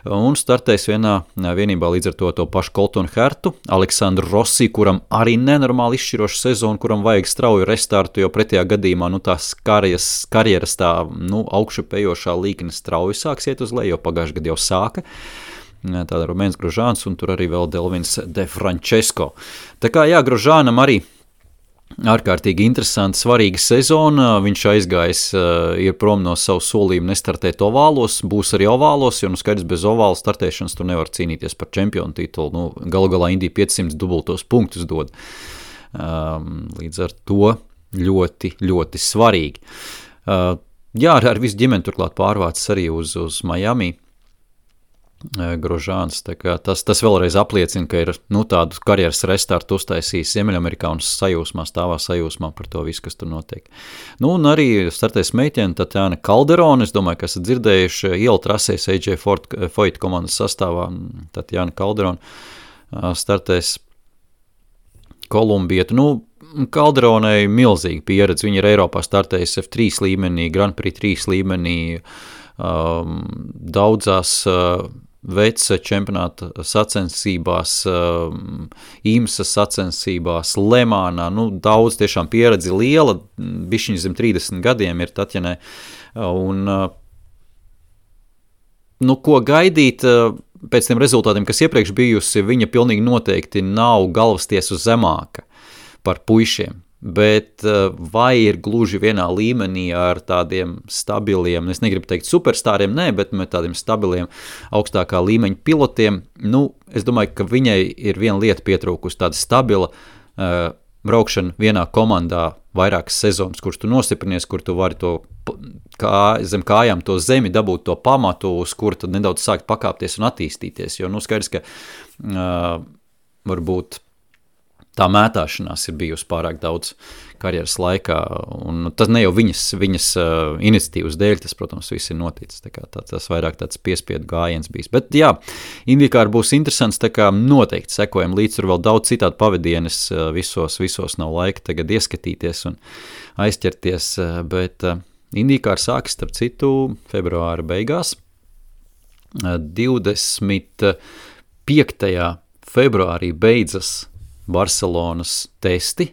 Un startēs vienībā līdz ar to pašu Coltonu Hertu, Aleksandru Rossi, kuram arī nenormāli izšķirošu sezonu, kuram vajag strauju restartu, jo pretējā gadījumā, tās karjeras tā, augšupejošā līkne strauji sāks iet uz leju, jo pagājušajā gadā jau sāka. Tāda Romains Grosjeans un tur arī vēl Delvins De Francesco. Tā kā jā, Grosjeanam arī ārkārtīgi interesanta, svarīga sezona. Viņš aizgājis, ir prom no savu solījumu nestartēt ovālos, būs arī ovālos, jo skaidrs bez ovāla startēšanas tu nevar cīnīties par čempionu titulu. Galu galā Indija 500 dubultos punktus dod. Līdz ar to ļoti, ļoti svarīgi. Jā, ar visu ģimeni turklāt pārvācis arī uz Miami. Grožāns, tas vēlreiz apliecina, ka ir tādu karjeras restartu uztaisījis Ziemeļamerikā un stāvā sajūsmā par to visu, kas tur notiek. Un arī startēs meitene Tatjana Calderone, es domāju, ka esat dzirdējuši ielu trasēs AJ Foyt komandas sastāvā. Tatjana Calderone startēs Kolumbieta. Calderonei milzīga pieredze, viņa ir Eiropā startējusi F3 līmenī, Grand Prix 3 līmenī, daudzās veca čempionāta sacensībās, IMSA sacensībās, Lemānā, daudz tiešām pieredzi liela, bišķiņ zem 30 gadiem ir Tatjanai, un ko gaidīt pēc tiem rezultātiem, kas iepriekš bijusi, viņa pilnīgi noteikti nav galvastiesu zemāka par puišiem. Bet vai ir gluži vienā līmenī ar tādiem stabiliem, es negribu teikt superstāriem, bet tādiem stabiliem augstākā līmeņa pilotiem, es domāju, ka viņai ir viena lieta pietrūkusi, tāda stabila braukšana vienā komandā vairākas sezonas, kurš tu nostiprinies, kur tu vari to zem kājām to zemi dabūt to pamatu, uz kur tad nedaudz sākt pakāpties un attīstīties, jo skaidrs, ka varbūt tā mētāšanās ir bijusi pārāk daudz karjeras laikā, un tas ne jau viņas iniciatīvas dēļ, tas, protams, viss ir noticis, tas vairāk tāds piespiedu gājiens bijis. Bet jā, IndyCar būs interesants, noteikti sekojam līdz, tur vēl daudz citādi pavadienes, visos nav laika tagad ieskatīties un aizķerties, bet IndyCar sāks, starp citu, februāra beigās, 25. februārī beidzas Barcelonas testi,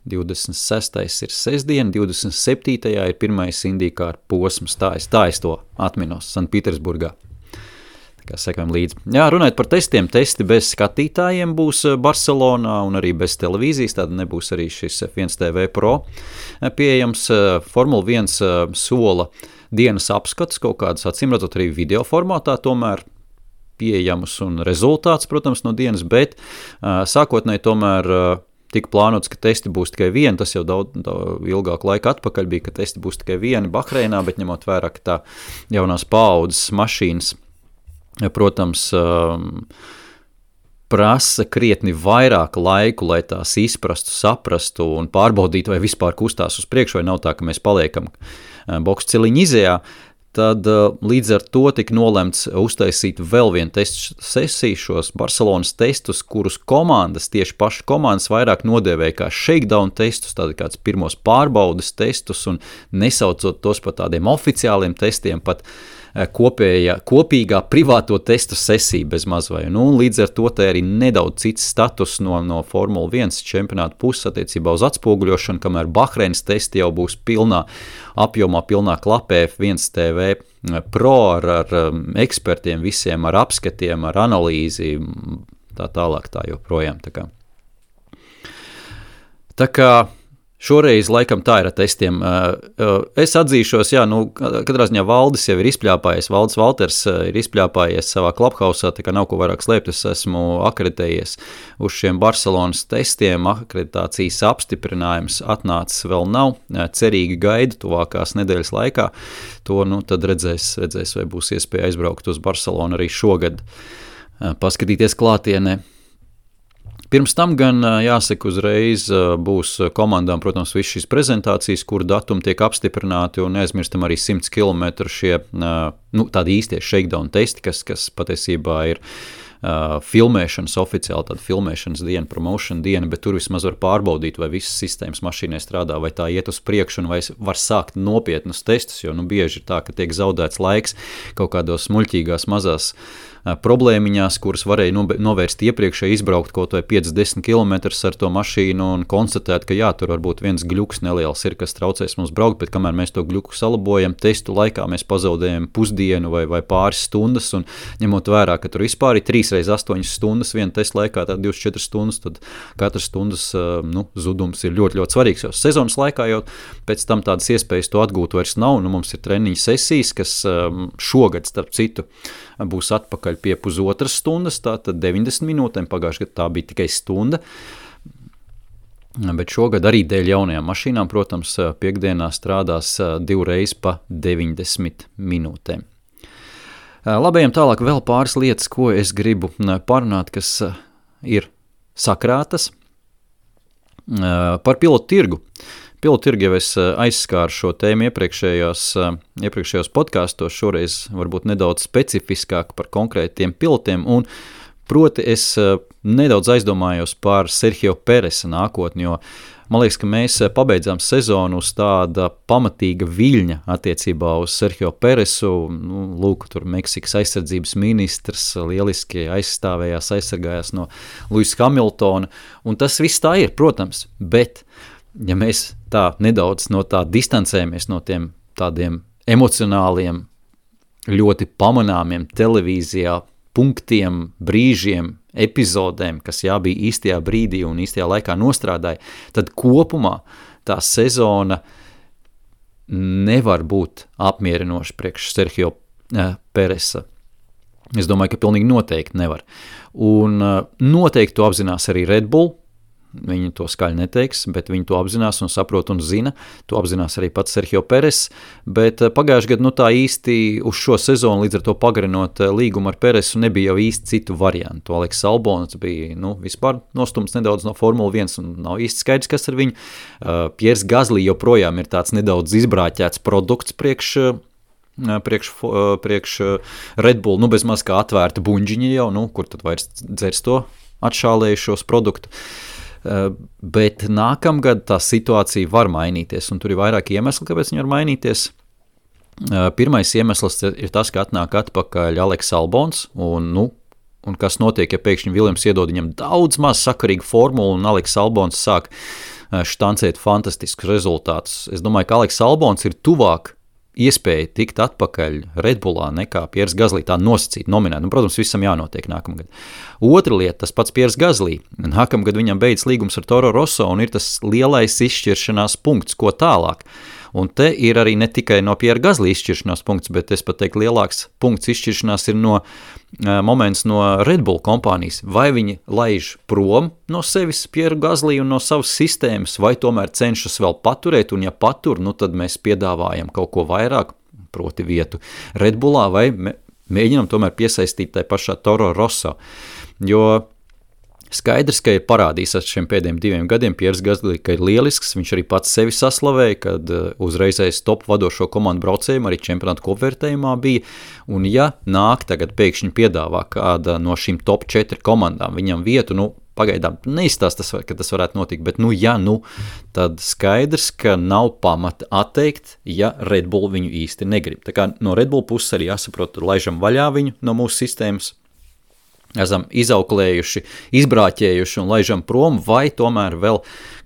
26. ir sestdiena, 27. ir pirmais IndyCar posms, tā es to atminos Sanktpēterburgā. Sekojam līdzi. Jā, runājot par testiem, testi bez skatītājiem būs Barcelonā un arī bez televīzijas, tad nebūs arī šis F1 TV Pro pieejams. Formula 1 sola dienas apskats, kaut kādas acīmredzot arī video formātā tomēr pieejamus un rezultāts, protams, no dienas, bet sākotnēji tomēr tika plānots, ka testi būs tikai vieni, tas jau daudz ilgāku laiku atpakaļ bija, ka testi būs tikai vieni Bahreinā, bet ņemot vērā, ka tā jaunās paaudzes mašīnas, protams, prasa krietni vairāk laiku, lai tās izprastu, saprastu un pārbaudītu, vai vispār kustās uz priekšu, vai nav tā, ka mēs paliekam boksu ciliņu izejā, tad līdz ar to tika nolemts uztaisīt vēl vienu testu sesiju, šos Barcelonas testus, kurus komandas, tieši paši komandas vairāk nodēvēja kā shakedown testus, tādi kāds pirmos pārbaudes testus un nesaucot tos par tādiem oficiāliem testiem, pat kopīgā privāto testu sesiju bez mazvai. Līdz ar to te arī nedaudz cits status no Formula 1 čempionāta puses attiecībā uz atspoguļošanu, kamēr Bahreinas testi jau būs pilnā apjomā, pilnā klapē F1 TV Pro ar ekspertiem visiem, ar apskatiem, ar analīzi, tā tālāk tā joprojām. Tā kā šoreiz laikam tā ir ar testiem. Es atzīšos, katrā ziņā Valdis jau ir izpļāpājies, Valdis Valters ir izpļāpājies savā klubhausā, tā kā nav ko vairāk slēpt, es esmu akreditējies uz šiem Barcelonas testiem, akreditācijas apstiprinājums atnācis vēl nav, cerīgi gaidu tuvākās nedēļas laikā, to tad redzēs, vai būs iespēja aizbraukt uz Barcelonu arī šogad, paskatīties klātienē. Pirms tam gan, jāsaka, uzreiz būs komandām, protams, viss šīs prezentācijas, kur datumi tiek apstiprināti, un neaizmirstam arī 100 km šie, tādi īstie shakedown testi, kas patiesībā ir filmēšanas oficiāli, tāda filmēšanas diena, promotion diena, bet tur vismaz var pārbaudīt, vai visas sistēmas mašīnai strādā, vai tā iet uz priekšu, un vai var sākt nopietnus testus, jo bieži ir tā, ka tiek zaudēts laiks kaut kādos muļķīgās mazās problēmiņās, kuras varēja novērst iepriekšēji, izbraukt kaut vai 5-10 km ar to mašīnu un konstatēt, ka jā, tur varbūt viens gļuks neliels ir, kas traucēs mums braukt, bet kamēr mēs to gļuku salabojam, testu laikā mēs pazaudējam pusdienu vai pāris stundas, un ņemot vērā, ka tur vispār ir 3x8 stundas viena testa laikā, tā 24 stundas, tad katras stundas zudums ir ļoti, ļoti svarīgs, jo sezonas laikā jau pēc tam tādas iespējas to atgūt vairs nav, mums ir treniņu sesijas, kas šogad, starp citu, būs atpakaļ pie pusotras stundas, tātad 90 minūtēm, pagājušajā gadā tā bija tikai stunda, bet šogad arī dēļ jaunajām mašīnām, protams, piekdienā strādās 2 reizes pa 90 minūtēm. Labējiem tālāk vēl pāris lietas, ko es gribu parunāt, kas ir sakrātas par pilotu tirgu. Pilotu tirgu jau es aizskāru šo tēmu iepriekšējos podkastos, šoreiz varbūt nedaudz specifiskāk par konkrētiem pilotiem, un proti es nedaudz aizdomājos par Sergio Peresa nākotni, jo man liekas, ka mēs pabeidzām sezonu uz tāda pamatīga viļņa attiecībā uz Sergio Peresu, lūk, tur Meksikas aizsardzības ministrs lieliski aizsargājās no Lewisa Hamiltona, un tas viss tā ir, protams, bet ja mēs tā nedaudz no tā distancējamies no tiem tādiem emocionāliem, ļoti pamanāmiem televīzijā punktiem, brīžiem, epizodēm, kas bija īstajā brīdī un īstajā laikā nostrādāja, tad kopumā tā sezona nevar būt apmierinoša priekš Sergio Peresa. Es domāju, ka pilnīgi noteikti nevar. Un noteikti to apzinās arī Red Bull. Viņi to skaļi neteiks, bet viņi to apzinās un saprot un zina. To apzinās arī pats Sergio Peres, bet pagājušajā gadā tā īsti uz šo sezonu, līdz ar to pagarinot līgumu ar Peresu, nebija jau īsti citu variantu. Aleks Albons bija vispār nostumts nedaudz no Formula 1 un nav īsti skaidrs, kas ar viņu. Piers Gasly joprojām ir tāds nedaudz izbrāķēts produkts priekš Red Bull, bezmaz kā atvērta buņģiņa jau, kur tad vairs dzers to atšālējušos produktu. Bet nākamgad tā situācija var mainīties, un tur ir vairāki iemesli, kāpēc viņi var mainīties. Pirmais iemesls ir tas, ka atnāk atpakaļ Aleks Albons, un kas notiek, ja pēkšņi Viljams iedod viņam daudz maz sakarīgu formulu, un Aleks Albons sāk štancēt fantastiskus rezultātus. Es domāju, ka Aleks Albons ir tuvāk iespēja tikt atpakaļ Red Bullā nekā Piers Gasly, tā nosacīt, nominēt. Protams, visam jānotiek nākamgad. Otra lieta, tas pats Piers Gasly. Nākamgad viņam beidz līgums ar Toro Rosso un ir tas lielais izšķiršanās punkts, ko tālāk. Un te ir arī ne tikai no Piera Gasly izšķiršanās punkts, bet es pat teiktu lielāks punkts izšķiršanās ir moments no Red Bull kompānijas. Vai viņi laiž prom no sevis Pieru Gasly un no savas sistēmas, vai tomēr cenšas vēl paturēt, un ja patur, tad mēs piedāvājam kaut ko vairāk, proti vietu Red Bullā, vai mēģinam tomēr piesaistīt tai pašā Toro Rosso. Jo skaidrs, ka ir parādījis ar šiem pēdējiem 2 gadiem Piers Gasly, ka ir lielisks, viņš arī pats sevi saslavēja, kad uzreizēs top vadošo komandu braucējiem arī čempionātu kopvērtējumā bija, un ja nāk tagad pēkšņi piedāvā kāda no šīm top 4 komandām viņam vietu, pagaidām neizstāst, ka tas varētu notikt, bet tad skaidrs, ka nav pamata atteikt, ja Red Bull viņu īsti negrib. Tā kā no Red Bull puses arī jāsaprot, laižam vaļā viņu no mūsu sistēmas, esam izauklējuši, izbrāķējuši un laižam prom, vai tomēr vēl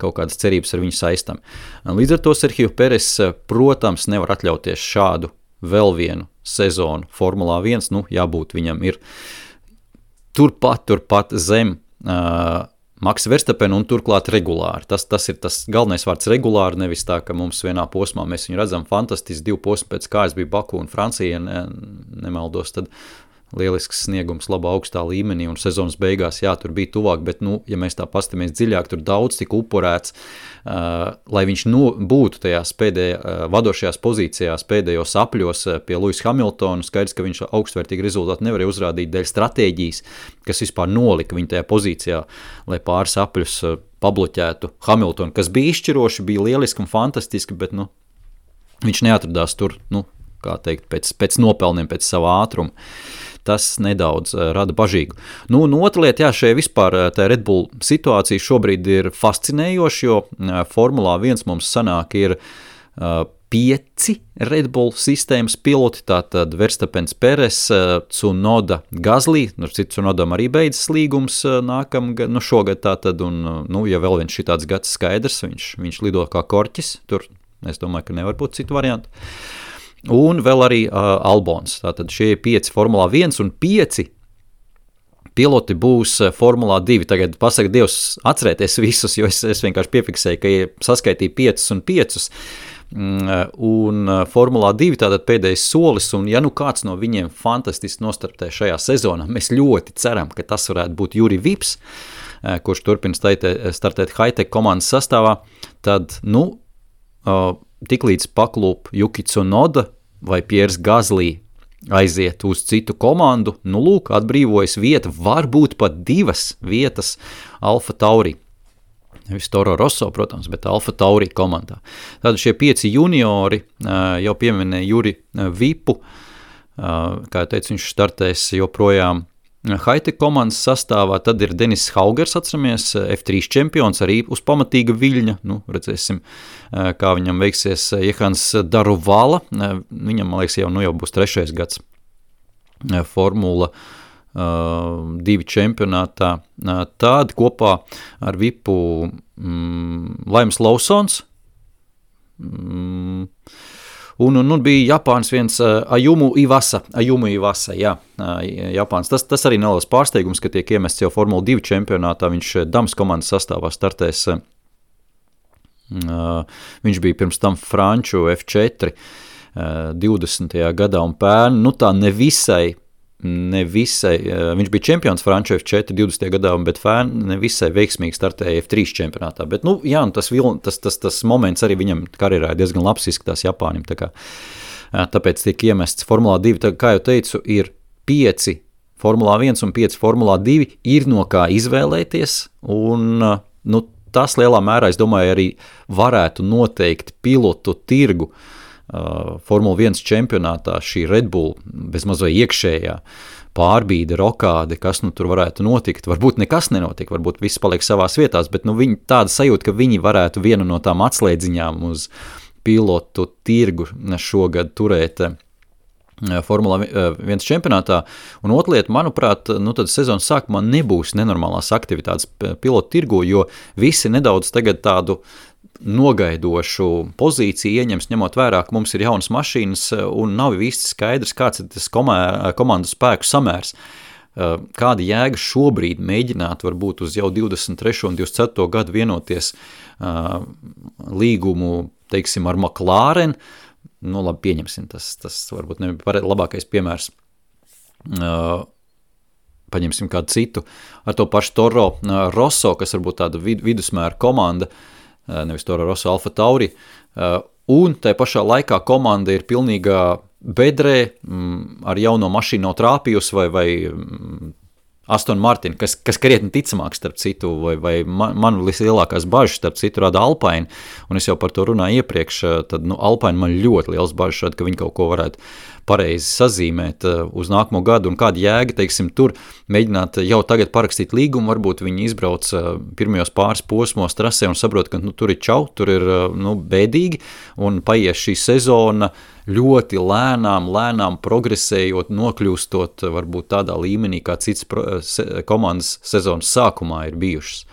kaut kādas cerības ar viņu saistam. Līdz ar to Sergio Peres, protams, nevar atļauties šādu vēl vienu sezonu Formulā 1, jābūt viņam ir turpat zem Max Verstappen un turklāt regulāri. Tas ir tas galvenais vārds regulāri, nevis tā, ka mums vienā posmā mēs viņu redzam fantastiski 2 posmi pēc kājas bija Baku un Francija, nemaldos, tad lielisks sniegums labā augstā līmenī un sezonas beigās, tur bija tuvāk, bet, ja mēs tā pastamies dziļāk, tur daudz tik upurēts, lai viņš būtu tajās vadošajās pozīcijās pēdējos apļos pie Lewisa Hamiltona, skaidrs, ka viņš augstvērtīgi rezultāti nevarēja uzrādīt dēļ stratēģijas, kas vispār nolika viņu tajā pozīcijā, lai pāris apļus pabloķētu Hamiltonu, kas bija izšķiroši, bija lieliski un fantastiski, bet, viņš neatradās tur, kā teikt, pēc nopelniem, pēc savā ātruma. Tas nedaudz rada bažīgu. Un otra lieta, šajā vispār tā Red Bull situācija šobrīd ir fascinējoša, jo Formulā 1 mums sanāk ir 5 Red Bull sistēmas piloti, tātad Verstappens, Peres, Tsunoda, Gasly, Tsunodam arī beidzas līgums šogad tātad, un, ja vēl viens šitāds gads skaidrs, viņš lido kā korķis, tur es domāju, ka nevar būt citu variantu. Un vēl arī Albons, tātad šie 5 Formulā 1 un 5 piloti būs Formulā 2. Tagad pasaka Dievs atcerēties visus, jo es vienkārši piefiksēju, ka saskaitīju 5 un 5, un Formulā 2 tātad pēdējais solis, un ja nu kāds no viņiem fantastiski nostartē šajā sezonā, mēs ļoti ceram, ka tas varētu būt Juri Vips, kurš turpina startēt Hightech komandas sastāvā, tad, tiklīdz paklūp Yuki Tsunoda vai Pierre Gasly aiziet uz citu komandu, atbrīvojas vieta, varbūt pat 2 vietas Alfa Tauri. Nevis Toro Rosso, protams, bet Alfa Tauri komandā. Tad šie 5 juniori, jau pieminēja Juri Vipu, kā jau teicu, viņš startēs joprojām Hightech komandas sastāvā, tad ir Denis Haugers, atceramies, F3 čempions, arī uz pamatīga viļņa, redzēsim, kā viņam veiksies Jehans Daruvala, viņam, man liekas, jau būs 3. gads Formula 2 čempionātā, tad kopā ar Vipu Laims Lawsons, un bija Japāns viens Ayumu Iwasa, jā, Japāns. Tas arī neliels pārsteigums, ka tiek iemests jau Formula 2 čempionātā, viņš Dams komandas sastāvā startēs, viņš bija pirms tam Franču F4 20. gadā un pērn, tā nevisai, viņš bija čempions Franču F4 20. gadā, bet nevisai veiksmīgi startēja F3 čempionātā, bet, tas moments arī viņam karjerā diezgan labs izskatās Japānim, tāpēc tiek iemests Formulā 2, kā jau teicu, ir 5 Formulā 1 un 5 Formulā 2, ir no kā izvēlēties, un, tas lielā mērā, es domāju, arī varētu noteikt pilotu tirgu Formula 1 čempionātā, šī Red Bull bezmaz vai iekšējā pārbīde, rokāde, kas tur varētu notikt. Varbūt nekas nenotiek, varbūt viss paliek savās vietās, bet viņi tāda sajūta, ka viņi varētu vienu no tām atslēdziņām uz pilotu tirgu šogad turēt Formula 1 čempionātā. Un otra lieta, manuprāt, tad sezonas sākumā nebūs nenormālās aktivitātes pilotu tirgu, jo visi nedaudz tagad tādu nogaidošu pozīciju ieņems, ņemot vērā, ka mums ir jaunas mašīnas un nav īsti skaidrs, kāds ir tas komandu spēku samērs. Kāda jēga šobrīd mēģināt varbūt uz jau 23. un 24. gadu vienoties līgumu, teiksim, ar McLaren, labi, pieņemsim, tas varbūt nebija labākais piemērs. Paņemsim kādu citu, ar to pašu Toro Rosso, kas varbūt tāda vidusmēra komanda, nevis Toro Rosso, Alfa Tauri, un tai pašā laikā komanda ir pilnīgā bedrē, ar jauno mašīnu nav trāpījusi vai Aston Martin, kas krietni ticamāk starp citu, vai man vislielākās bažas starp citu rada Alpine, un es jau par to runāju iepriekš, tad Alpine man ļoti liels bažas rada, ka viņi kaut ko varētu pareizi sazīmēt uz nākamo gadu, un kāda jēga, teiksim, tur mēģināt jau tagad parakstīt līgumu, varbūt viņi izbrauc pirmajos pāris posmos trasē un saprot, ka tur ir čau, tur ir bēdīgi, un paies šī sezona ļoti lēnām progresējot, nokļūstot varbūt tādā līmenī, kā cits komandas sezonas sākumā ir bijušas.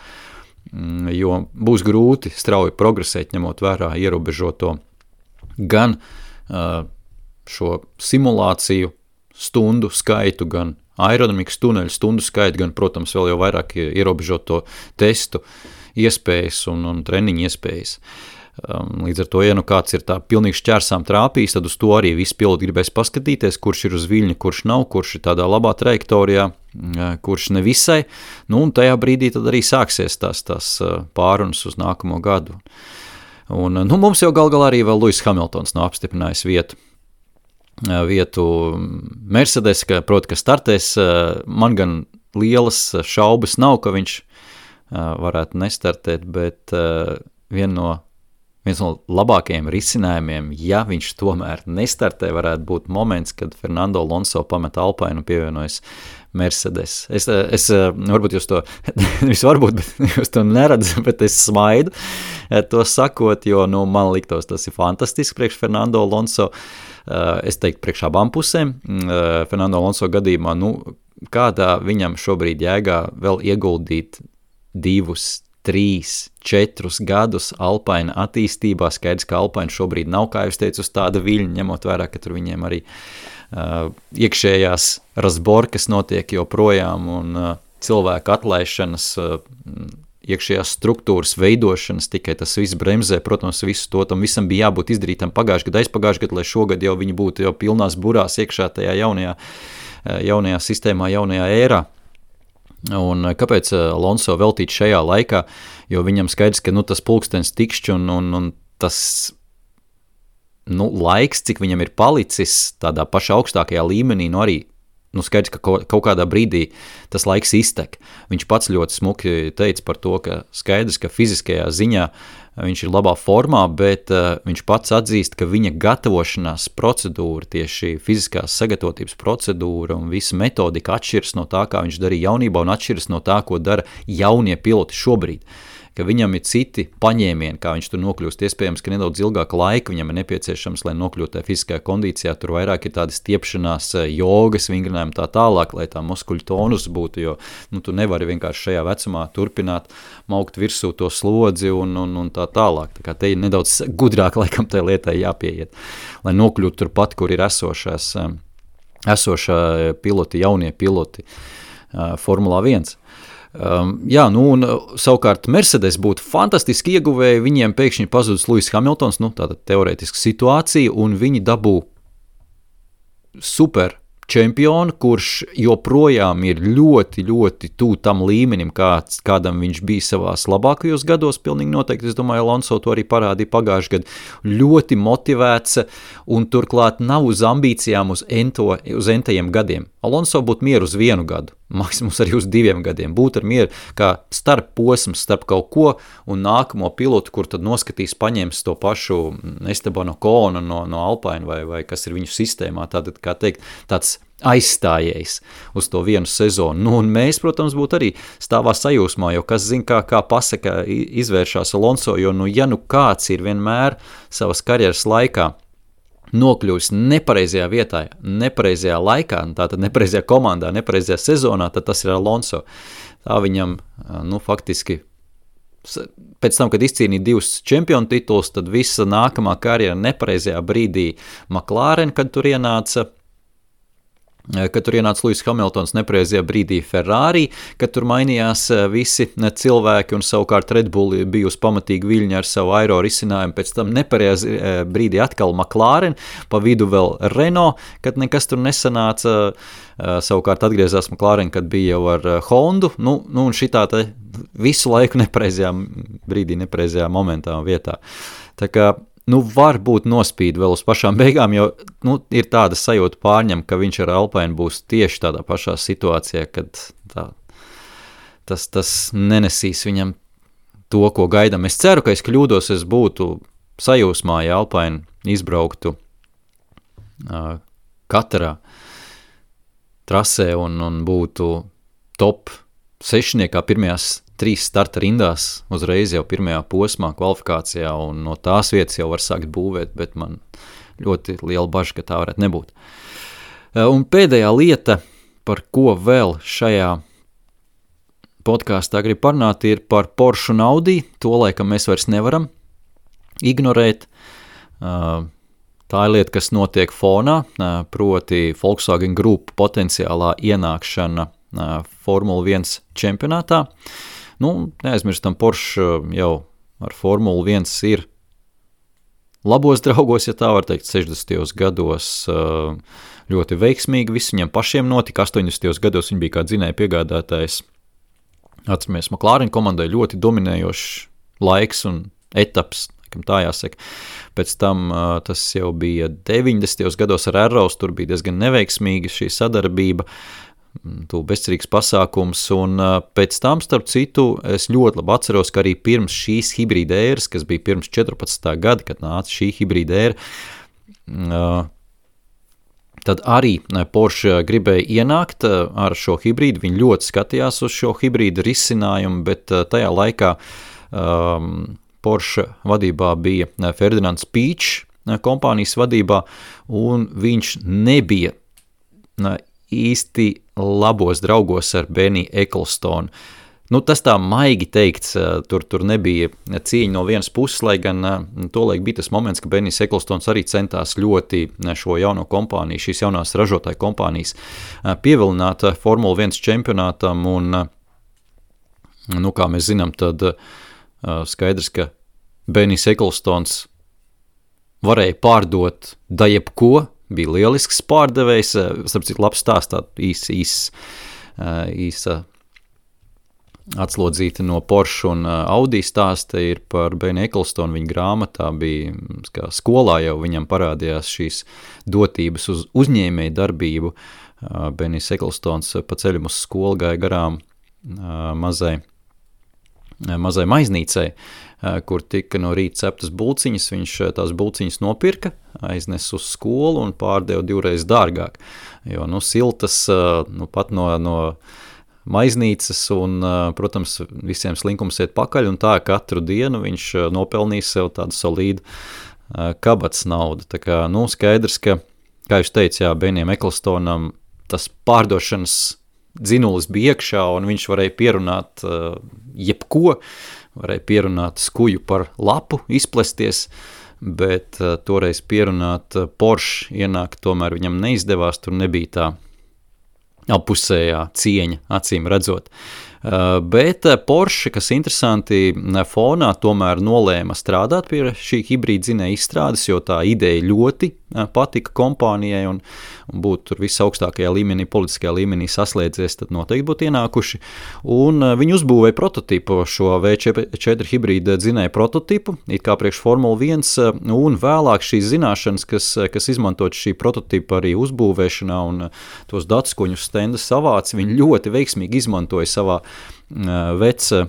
Jo būs grūti strauji progresēt, ņemot vērā ierobežoto gan šo simulāciju stundu skaitu, gan aerodinamikas tuneļu stundu skaitu, gan, protams, vēl jau vairāk ierobežoto testu iespējas un treniņu iespējas. Līdz ar to, ja kāds ir tā pilnīgi šķērsām trāpījis, tad uz to arī visi piloti gribēs paskatīties, kurš ir uz viļņa, kurš nav, kurš ir tādā labā trajektorijā, kurš nevisai, un tajā brīdī tad arī sāksies tās pārunas uz nākamo gadu. Un mums jau galā arī vēl Lewis Hamiltons nav apstiprinājis vietu Mercedes, proti, ka startēs, man gan lielas šaubas nav, ka viņš varētu nestartēt, bet viena no viens no labākajiem risinājumiem, ja viņš tomēr nestartē, varētu būt moments, kad Fernando Alonso pamet Alpine un pievienojas Mercedes. Es varbūt jūs to, varbūt, bet jūs to neredzat, bet es smaidu to sakot, jo, man liktos, tas ir fantastiski priekš Fernando Alonso. Es teiktu priekš abām pusēm. Fernando Alonso gadījumā, kādā viņam šobrīd jēgā vēl ieguldīt 2, 3, 4 gadus Alpine attīstībā, skaidrs, ka Alpine šobrīd nav, kā jūs teicu, uz tāda viļņa, ņemot vērā, ka tur viņiem arī iekšējās razborkas notiek joprojām un cilvēku atlaišanas, iekšējās struktūras veidošanas, tikai tas viss bremzē, protams, visu to, tam visam bija jābūt izdarītam aizpagājušajā gadā, lai šogad jau viņi būtu jau pilnās burās iekšā tajā jaunajā sistēmā, jaunajā ērā. Un kāpēc Alonso veltīt šajā laikā, jo viņam skaidrs, ka tas pulkstens tikšķi un tas laiks, cik viņam ir palicis tādā pašā augstākajā līmenī, arī skaidrs, ka kaut kādā brīdī tas laiks iztek. Viņš pats ļoti smuki teica par to, ka skaidrs, ka fiziskajā ziņā viņš ir labā formā, bet viņš pats atzīst, ka viņa gatavošanās procedūra, tieši fiziskās sagatavotības procedūra un visa metodika atšķiras no tā, kā viņš darīja jaunībā un atšķiras no tā, ko dara jaunie piloti šobrīd. Ka viņam ir citi paņēmieni, kā viņš tur nokļūst. Iespējams, ka nedaudz ilgāka laika viņam ir nepieciešams, lai nokļūtu tajā fiziskajā kondīcijā. Tur vairāk ir tādas stiepšanās, jogas, vingrinājumi tā tālāk, lai tā muskuļu tonus būtu, jo tu nevari vienkārši šajā vecumā turpināt maukt virsū to slodzi un tā tālāk. Tā kā te ir nedaudz gudrāk laikam tai lietai jāpieiet, lai nokļūtu turpat, kur ir esošā piloti, jaunie piloti Formulā 1. Un savukārt Mercedes būtu fantastiski ieguvēji, viņiem pēkšņi pazudus Lewis Hamiltons, tātad teorētiska situācija, un viņi dabū super čempionu, kurš joprojām ir ļoti, ļoti tuvu tam līmenim, kādam viņš bija savās labākajos gados, pilnīgi noteikti. Es domāju, Alonso to arī parādīja pagājušajā gadā. Ļoti motivēts un turklāt nav uz ambīcijām uz entajiem gadiem. Alonso būtu mieru uz 1 gadu, maksimums arī uz 2 gadiem. Būtu ar mieru kā starp posms, starp kaut ko un nākamo pilotu, kur tad noskatīs, paņems to pašu Esteban Oconu no Alpine vai kas ir viņu sistēmā. Tātad, kā teikt, tāds aizstājējs uz to vienu sezonu. Un mēs, protams, būtu arī stāvā sajūsmā, jo kas zina, kā pasaka izvēršās Alonso, jo kāds ir vienmēr savas karjeras laikā nokļūst nepareizajā vietā, nepareizajā laikā, tātad nepareizajā komandā, nepareizajā sezonā, tad tas ir Alonso. Tā viņam, faktiski, pēc tam, kad izcīnīja 2 čempionu tituls, tad visa nākamā karjera nepareizajā brīdī McLaren, kad tur ienāca Lewis Hamiltons, nepareizajā brīdī Ferrari, kad tur mainījās visi cilvēki un savukārt Red Bull bija uz pamatīgi viļņa ar savu aero risinājumu, pēc tam nepareizajā brīdī atkal McLaren, pa vidu vēl Renault, kad nekas tur nesanāca, savukārt atgriezās McLaren, kad bija jau ar Hondu, un šitā te visu laiku nepareizajā brīdī, nepareizajā momentā un vietā. Tā kā var būt nospīd vēl uz pašām beigām, jo ir tāda sajūta pārņem, ka viņš ar Alpine būs tieši tādā pašā situācijā, kad tas nenesīs viņam to, ko gaidām. Es ceru, ka es kļūdos, es būtu sajūsmā, ja Alpine izbrauktu katrā trasē un būtu top 6. pirmajās 3 starta rindās uzreiz jau pirmajā posmā kvalifikācijā, un no tās vietas jau var sākt būvēt, bet man ļoti liela baža, ka tā varētu nebūt. Un pēdējā lieta, par ko vēl šajā podkāstā grib parunāt, ir par Porsche un Audi. To laikam mēs vairs nevaram ignorēt. Tā ir lieta, kas notiek fonā, proti Volkswagen Group potenciālā ienākšana Formula 1 čempionātā. Neaizmirstam, Porsche jau ar Formulu 1 ir labos draugos, ja tā var teikt, 60. gados ļoti veiksmīgi, viss viņam pašiem notika, 80. gados viņi bija kā dzinēja piegādātājs. Atceramies, McLaren komandai ļoti dominējošs laiks un etaps, tā jāsaka. Pēc tam tas jau bija 90. gados ar Arrows, tur bija diezgan neveiksmīga šī sadarbība. bezcerīgs pasākums, un pēc tam, starp citu, es ļoti labi atceros, ka arī pirms šīs hibrīda ēras, kas bija pirms 14. gada, kad nāca šī hibrīda ēra, tad arī Porsche gribēja ienākt ar šo hibrīdu, viņi ļoti skatījās uz šo hibrīdu risinājumu, bet tajā laikā Porsche vadībā bija Ferdinands Pīčs kompānijas vadībā, un viņš nebija īsti labos draugos ar Benny Ecclestonu. Tas tā maigi teikts, tur nebija cieņa no vienas puses, lai gan tolaik bija tas moments, ka Bennys Ecclestons arī centās ļoti šo jauno kompāniju, šīs jaunās ražotāju kompānijas pievilināt Formula 1 čempionātam, un, kā mēs zinām, tad skaidrs, ka Bennys Ecclestons varēja pārdot da jebko, bija lielisks pārdevējs, starp citu labs stāstā, īsa atslodzīta no Porsche un Audi stāsta ir par Benny Ecclestonu, viņa grāmatā bija, kā skolā jau viņam parādījās šīs dotības uz uzņēmēju darbību. Bennys Ecclestons pa ceļam uz skolu gāja garām mazai maiznīcai, kur tika no rīta ceptas bulciņas, viņš tās bulciņas nopirka, aiznes uz skolu un pārdeva 2 reizes dārgāk, jo, siltas, pat no maiznīcas un, protams, visiem slinkums iet pakaļ, un tā katru dienu viņš nopelnīs sev tādu solīdu kabatas naudu. Tā kā, skaidrs, ka, kā jūs teicu, Bennyam Ecclestonam tas pārdošanas dzinulis bija iekšā, un viņš varēja pierunāt jebko, varēja pierunāt skuju par lapu, izplesties, bet toreiz pierunāt Porsche ienākt, tomēr viņam neizdevās, tur nebija tā apusējā cieņa, acīm redzot. Bet Porsche, kas interesanti fonā, tomēr nolēma strādāt pie šī hibrīda dzinēja izstrādes, jo tā ideja ļoti patika kompānijai un būtu tur visaugstākajā līmenī, politiskajā līmenī saslēdzies, tad noteikti būtu ienākuši. Un viņi uzbūvēja prototipu, šo V4 hibrīda dzinēja prototipu, it kā priekš Formula 1, un vēlāk šīs zināšanas, kas izmantot šī prototipa arī uzbūvēšanā un tos datus, ko viņi uz stenda savāca, viņi ļoti veiksmīgi izmantoja savā veca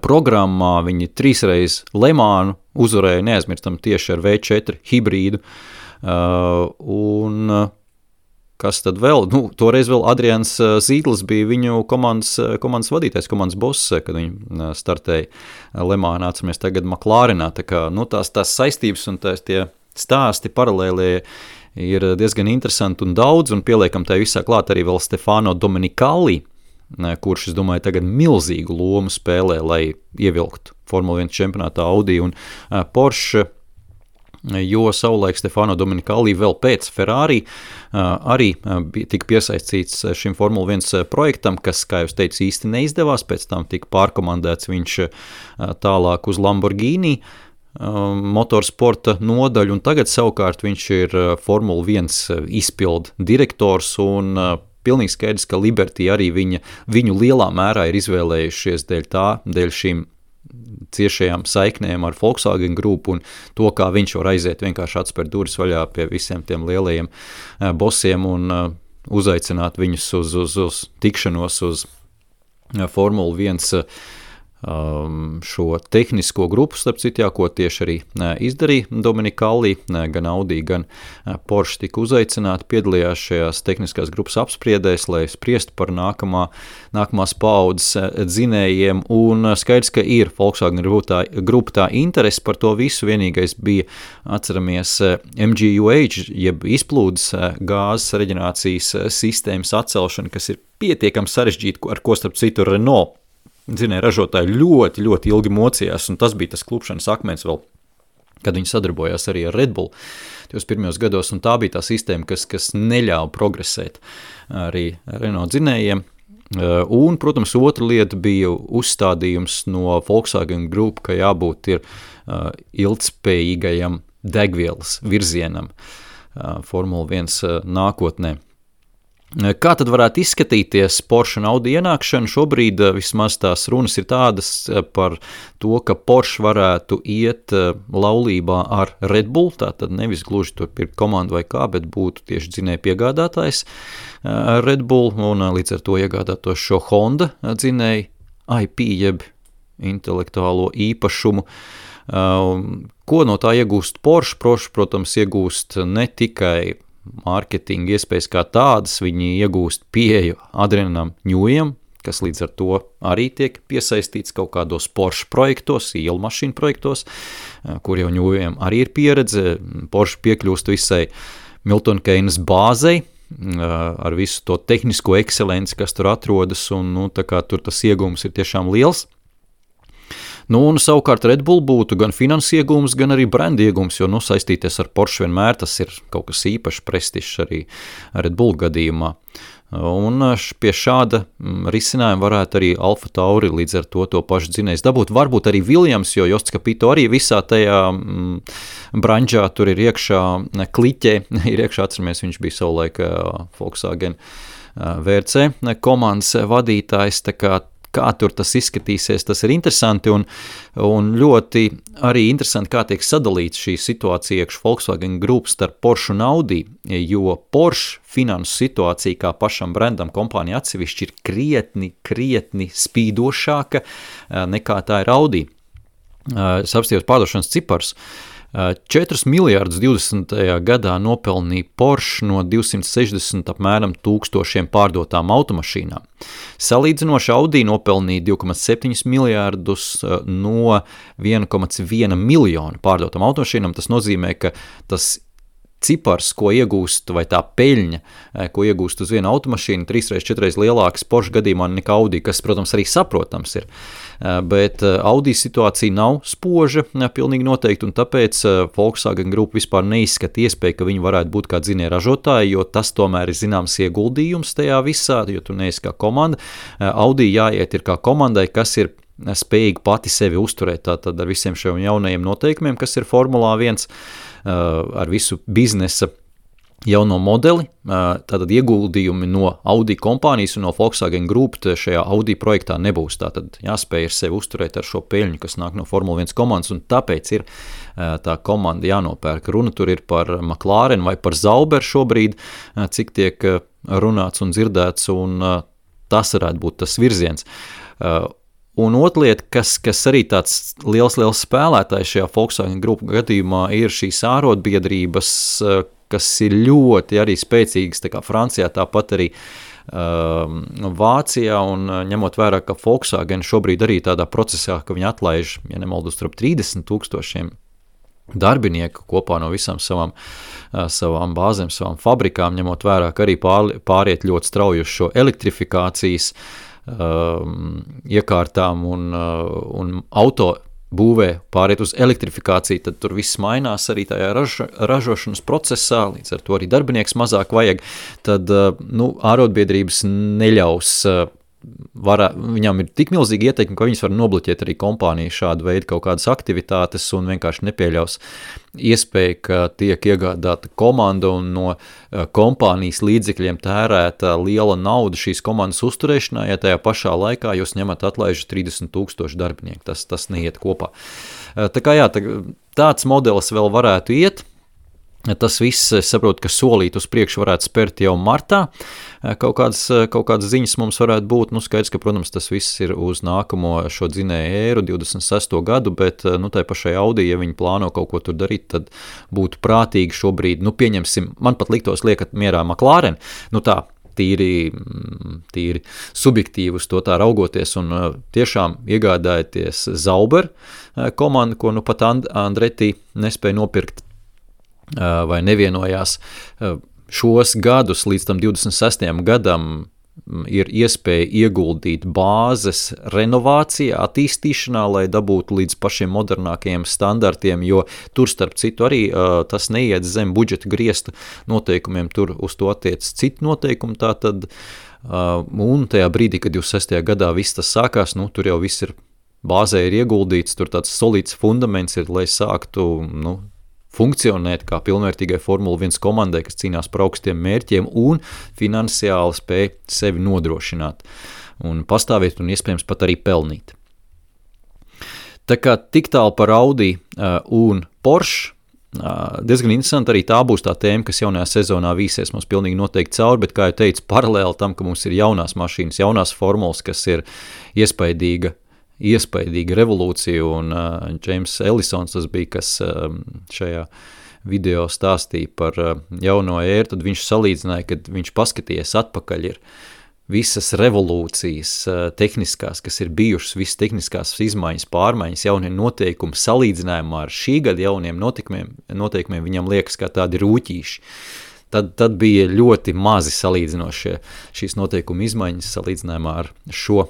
programmā, viņi 3 reizes Le Mansu uzvarēja, neaizmirstam tieši ar V4 hibrīdu, un kas tad vēl, toreiz vēl Adrians Zīdlis bija viņu komandas vadītājs, komandas boss, kad viņi startēja Le Mansu, atceramies tagad McLarenā, tā kā, tās saistības un tie stāsti paralēlie ir diezgan interesanti un daudz, un pieliekam tai visā klāt arī vēl Stefano Domenicali, kurš, es domāju, tagad milzīgu lomu spēlē, lai ievilktu Formula 1 čempionātā Audi un Porsche, jo savulaik Stefano Domenicali vēl pēc Ferrari arī tika piesaistīts šim Formula 1 projektam, kas, kā jūs teicu, īsti neizdevās, pēc tam tika pārkomandēts viņš tālāk uz Lamborghini motorsporta nodaļu, un tagad savukārt viņš ir Formula 1 izpildu direktors, un pilnīgi skaidrs, ka Liberty arī viņu lielā mērā ir izvēlējušies dēļ šīm ciešajām saiknēm ar Volkswagen grupu un to, kā viņš var aiziet vienkārši atspērt durvis vaļā pie visiem tiem lielajiem bosiem un uzaicināt viņus uz tikšanos uz Formula 1 šo tehnisko grupu, starp citu, ko tieši arī izdarīja Domenicali, gan Audi, gan Porsche tika uzaicināti, piedalījās šajās tehniskās grupas apspriedēs, lai spriestu par nākamās paaudzes dzinējiem, un skaidrs, ka ir Volkswagen grupa tā interesi par to visu, vienīgais bija, atceramies, MGUH, jeb izplūdes gāzes reģenerācijas sistēmas atcelšana, kas ir pietiekami sarežģīta, ar ko starp citu Renault dzinēja ražotāji ļoti, ļoti ilgi mocījās, un tas bija tas klupšanas akmens vēl, kad viņi sadarbojās arī ar Red Bull tos pirmajos gados, un tā bija tā sistēma, kas neļāva progresēt arī Renault dzinējiem. Un, protams, otra lieta bija uzstādījums no Volkswagen Group, ka jābūt ir ilgtspējīgajam degvielas virzienam Formula 1 nākotnē. Kā tad varētu izskatīties Porsche un Audi ienākšana? Šobrīd vismaz tās runas ir tādas par to, ka Porsche varētu iet laulībā ar Red Bull, tātad nevis gluži tur pirkt komandu vai kā, bet būtu tieši dzinēju piegādātājs Red Bull un līdz ar to iegādātos šo Honda dzinēju IP, jeb intelektuālo īpašumu. Ko no tā iegūst Porsche? Porsche, protams, iegūst ne tikai mārketinga iespējas kā tādas, viņi iegūst pieeju Adrianam Ņujam, kas līdz ar to arī tiek piesaistīts kaut kādos Porsche projektos, ielu mašīnu projektos, kur jau Ņujam arī ir pieredze. Porsche piekļūst visai Milton Keynes bāzei, ar visu to tehnisko ekscelenci, kas tur atrodas, un tā kā tur tas iegūms ir tiešām liels. Un savukārt Red Bull būtu gan finanses iegūms, gan arī brenda iegūms, jo saistīties ar Porsche vienmēr tas ir kaut kas īpašs prestižs arī Red Bull gadījumā. Un pie šāda risinājuma varētu arī Alfa Tauri līdz ar to pašu dzinējs dabūt. Varbūt arī Williams, jo Josts Capito arī visā tajā branžā tur ir iekšā kliķē, ir iekšā, atceramies, viņš bija savulaik Volkswagen VRC komandas vadītājs, tā kā tur tas izskatīsies, tas ir interesanti un ļoti arī interesanti, kā tiek sadalīts šī situācija iekš Volkswagen Group starp Porsche un Audi, jo Porsche finansu situācija kā pašam brendam kompānija atsevišķi ir krietni spīdošāka nekā tā ir Audi. Es apstījos pārdošanas cipars. 4 miljārdus 20. gadā nopelnīja Porsche no 260 apmēram tūkstošiem pārdotām automašīnām. Salīdzinoši Audi nopelnīja 2,7 miljārdus no 1,1 miljonu pārdotām automašīnām. Tas nozīmē, ka tas cipars, ko iegūst, vai tā peļņa, ko iegūst uz vienu automašīnu, 3-4 lielāks Porsche gadījumā nekā Audi, kas, protams, arī saprotams ir. Bet Audi situācija nav spoža, pilnīgi noteikti, un tāpēc Volkswagen Group vispār neizskata iespēju, ka viņi varētu būt kā dzinēja ražotāji, jo tas tomēr ir zināms ieguldījums tajā visā, jo tu neesi kā komanda. Audi jāiet ir kā komandai, kas ir spējīgi pati sevi uzturēt, tātad ar visiem šiem jaunajiem noteikumiem, kas ir Formulā 1, ar visu biznesa jauno modeli, tātad ieguldījumi no Audi kompānijas un no Volkswagen Group šajā Audi projektā nebūs. Tātad jāspēj ar sevi uzturēt ar šo peļņu, kas nāk no Formula 1 komandas, un tāpēc ir tā komanda jānopērk. Runa tur ir par McLaren vai par Sauber šobrīd, cik tiek runāts un dzirdēts, un tas varētu būt tas virziens. Un otra lieta, kas arī tāds liels spēlētājs šajā Volkswagen Group gadījumā, ir šīs ārotbiedrības, kas ir ļoti arī spēcīgas, tā kā Francijā, tāpat arī Vācijā, un ņemot vērā, ka Volkswagen šobrīd arī tādā procesā, ka viņi atlaiž, ja nemaldos, 30,000 darbinieku kopā no visām savām bāzēm, savām fabrikām, ņemot vērā, ka arī pāriet ļoti strauji uz šo elektrifikācijas iekārtām un auto būvē pāriet uz elektrifikāciju, tad tur viss mainās arī tajā ražošanas procesā, līdz ar to arī darbinieks mazāk vajag, tad ārotbiedrības neļaus viņam ir tik milzīgi ieteikumi, ka viņas var nobloķēt arī kompāniju šādu veidu kaut kādas aktivitātes un vienkārši nepieļaus iespēju, ka tiek iegādāta komanda un no kompānijas līdzekļiem tērēta liela nauda šīs komandas uzturēšanā, ja tajā pašā laikā jūs ņemat atlaižu 30,000 darbinieku. Tas neiet kopā. Tā kā tāds modelis vēl varētu iet. Tas viss, es saprotu, ka solīt uz priekšu varētu spērt jau martā. Kaut kādas ziņas mums varētu būt. Skaidrs, ka, protams, tas viss ir uz nākamo šo dzinēju ēru, 26. gadu, bet tai pašai Audi, ja viņi plāno kaut ko tur darīt, tad būtu prātīgi šobrīd, pieņemsim, man pat liktos liekat mierā McLaren, tā, tīri subjektīvi uz to tā raugoties un tiešām iegādājoties Sauber komandu, ko pat Andretti nespēja nopirkt, vai nevienojās šos gadus līdz tam 26. gadam ir iespēja ieguldīt bāzes renovācijā, attīstīšanā, lai dabūtu līdz pašiem modernākajiem standartiem, jo tur starp citu arī tas neiet zem budžeta griesta noteikumiem, tur uz to attiec citu noteikumu, tātad, un tajā brīdī, kad 26. gadā viss tas sākās, tur jau viss ir bāzē ir ieguldīts, tur tāds solīts fundaments ir, lai sāktu, funkcionēt kā pilnvērtīgai Formula 1 komandai, kas cīnās par augstiem mērķiem un finansiāli spēj sevi nodrošināt un pastāvēt un iespējams pat arī pelnīt. Tā kā tik tālu par Audi un Porsche, diezgan interesanti arī tā būs tā tēma, kas jaunajā sezonā vīsies mums pilnīgi noteikti cauri, bet, kā jau teicu, paralēli tam, ka mums ir jaunās mašīnas, jaunās formulas, kas ir iespaidīga revolūcija, un James Ellisons tas bija, kas šajā video stāstīja par jauno ēru, tad viņš salīdzināja, kad viņš paskatījies atpakaļ ir visas revolūcijas tehniskās, kas ir bijušas, visas tehniskās izmaiņas, pārmaiņas, jaunie noteikumi salīdzinājumā ar šī gada jauniem noteikumiem viņam liekas kā tādi rūķīši. Tad bija ļoti mazi salīdzinošie šīs noteikuma izmaiņas salīdzinājumā ar šo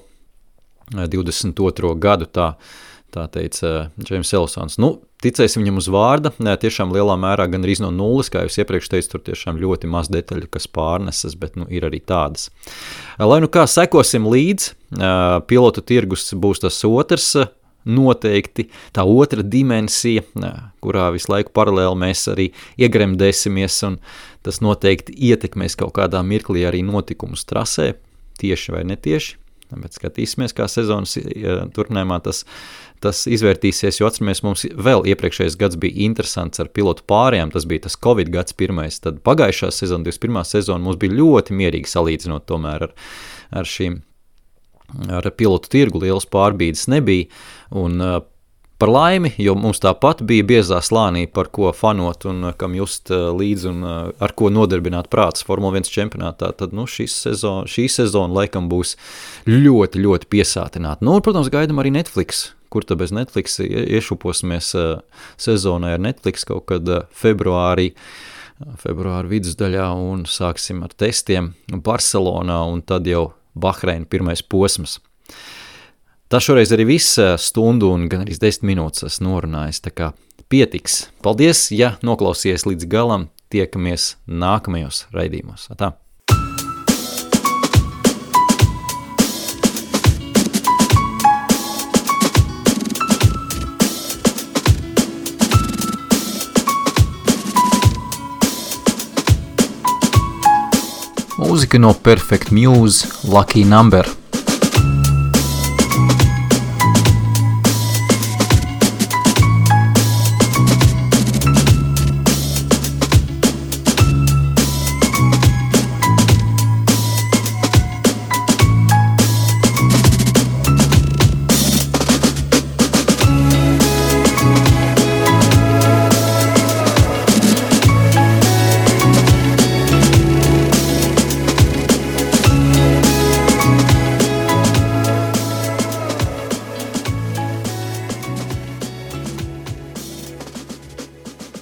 22. gadu, tā teica James Ellisons. Ticēsim viņam uz vārda, tiešām lielā mērā gan arī no nulles, kā jūs iepriekš teicu, tur tiešām ļoti maz detaļu, kas pārnesas, bet ir arī tādas. Lai kā sekosim līdz, pilotu tirgus būs tas otrs, noteikti tā otra dimensija, kurā visu laiku paralēli mēs arī iegremdēsimies, un tas noteikti ietekmēs kaut kādā mirklī arī notikumus trasē, tieši vai netieši. Bet skatīsimies, kā sezonas turpinājumā tas izvērtīsies, jo atceramies, mums vēl iepriekšējais gads bija interesants ar pilotu pārējām, tas bija tas Covid gads pirmais, tad pagājušā sezona, 21. sezona mums bija ļoti mierīgi salīdzinot tomēr ar pilotu tirgu, lielas pārbīdes nebija, un par laimi, jo mums tāpat bija biezā slānī, par ko fanot un kam just līdzi un ar ko nodarbināt prāts Formula 1 čempionātā, tad šī sezona laikam būs ļoti, ļoti piesātināta. Un, protams, gaidam arī Netflix, kur tad bez Netflix iešuposimies sezonai ar Netflix kaut kad februāra vidusdaļā un sāksim ar testiem Barcelonā un tad jau Bahreina pirmais posms. Tas šoreiz arī viss stundu un gan arī 10 minūtes esmu norunājis, tā kā pietiks. Paldies, ja noklausies līdz galam, tiekamies nākamajos raidījumos. Tā. Mūzika no Perfect Muse, Lucky Number.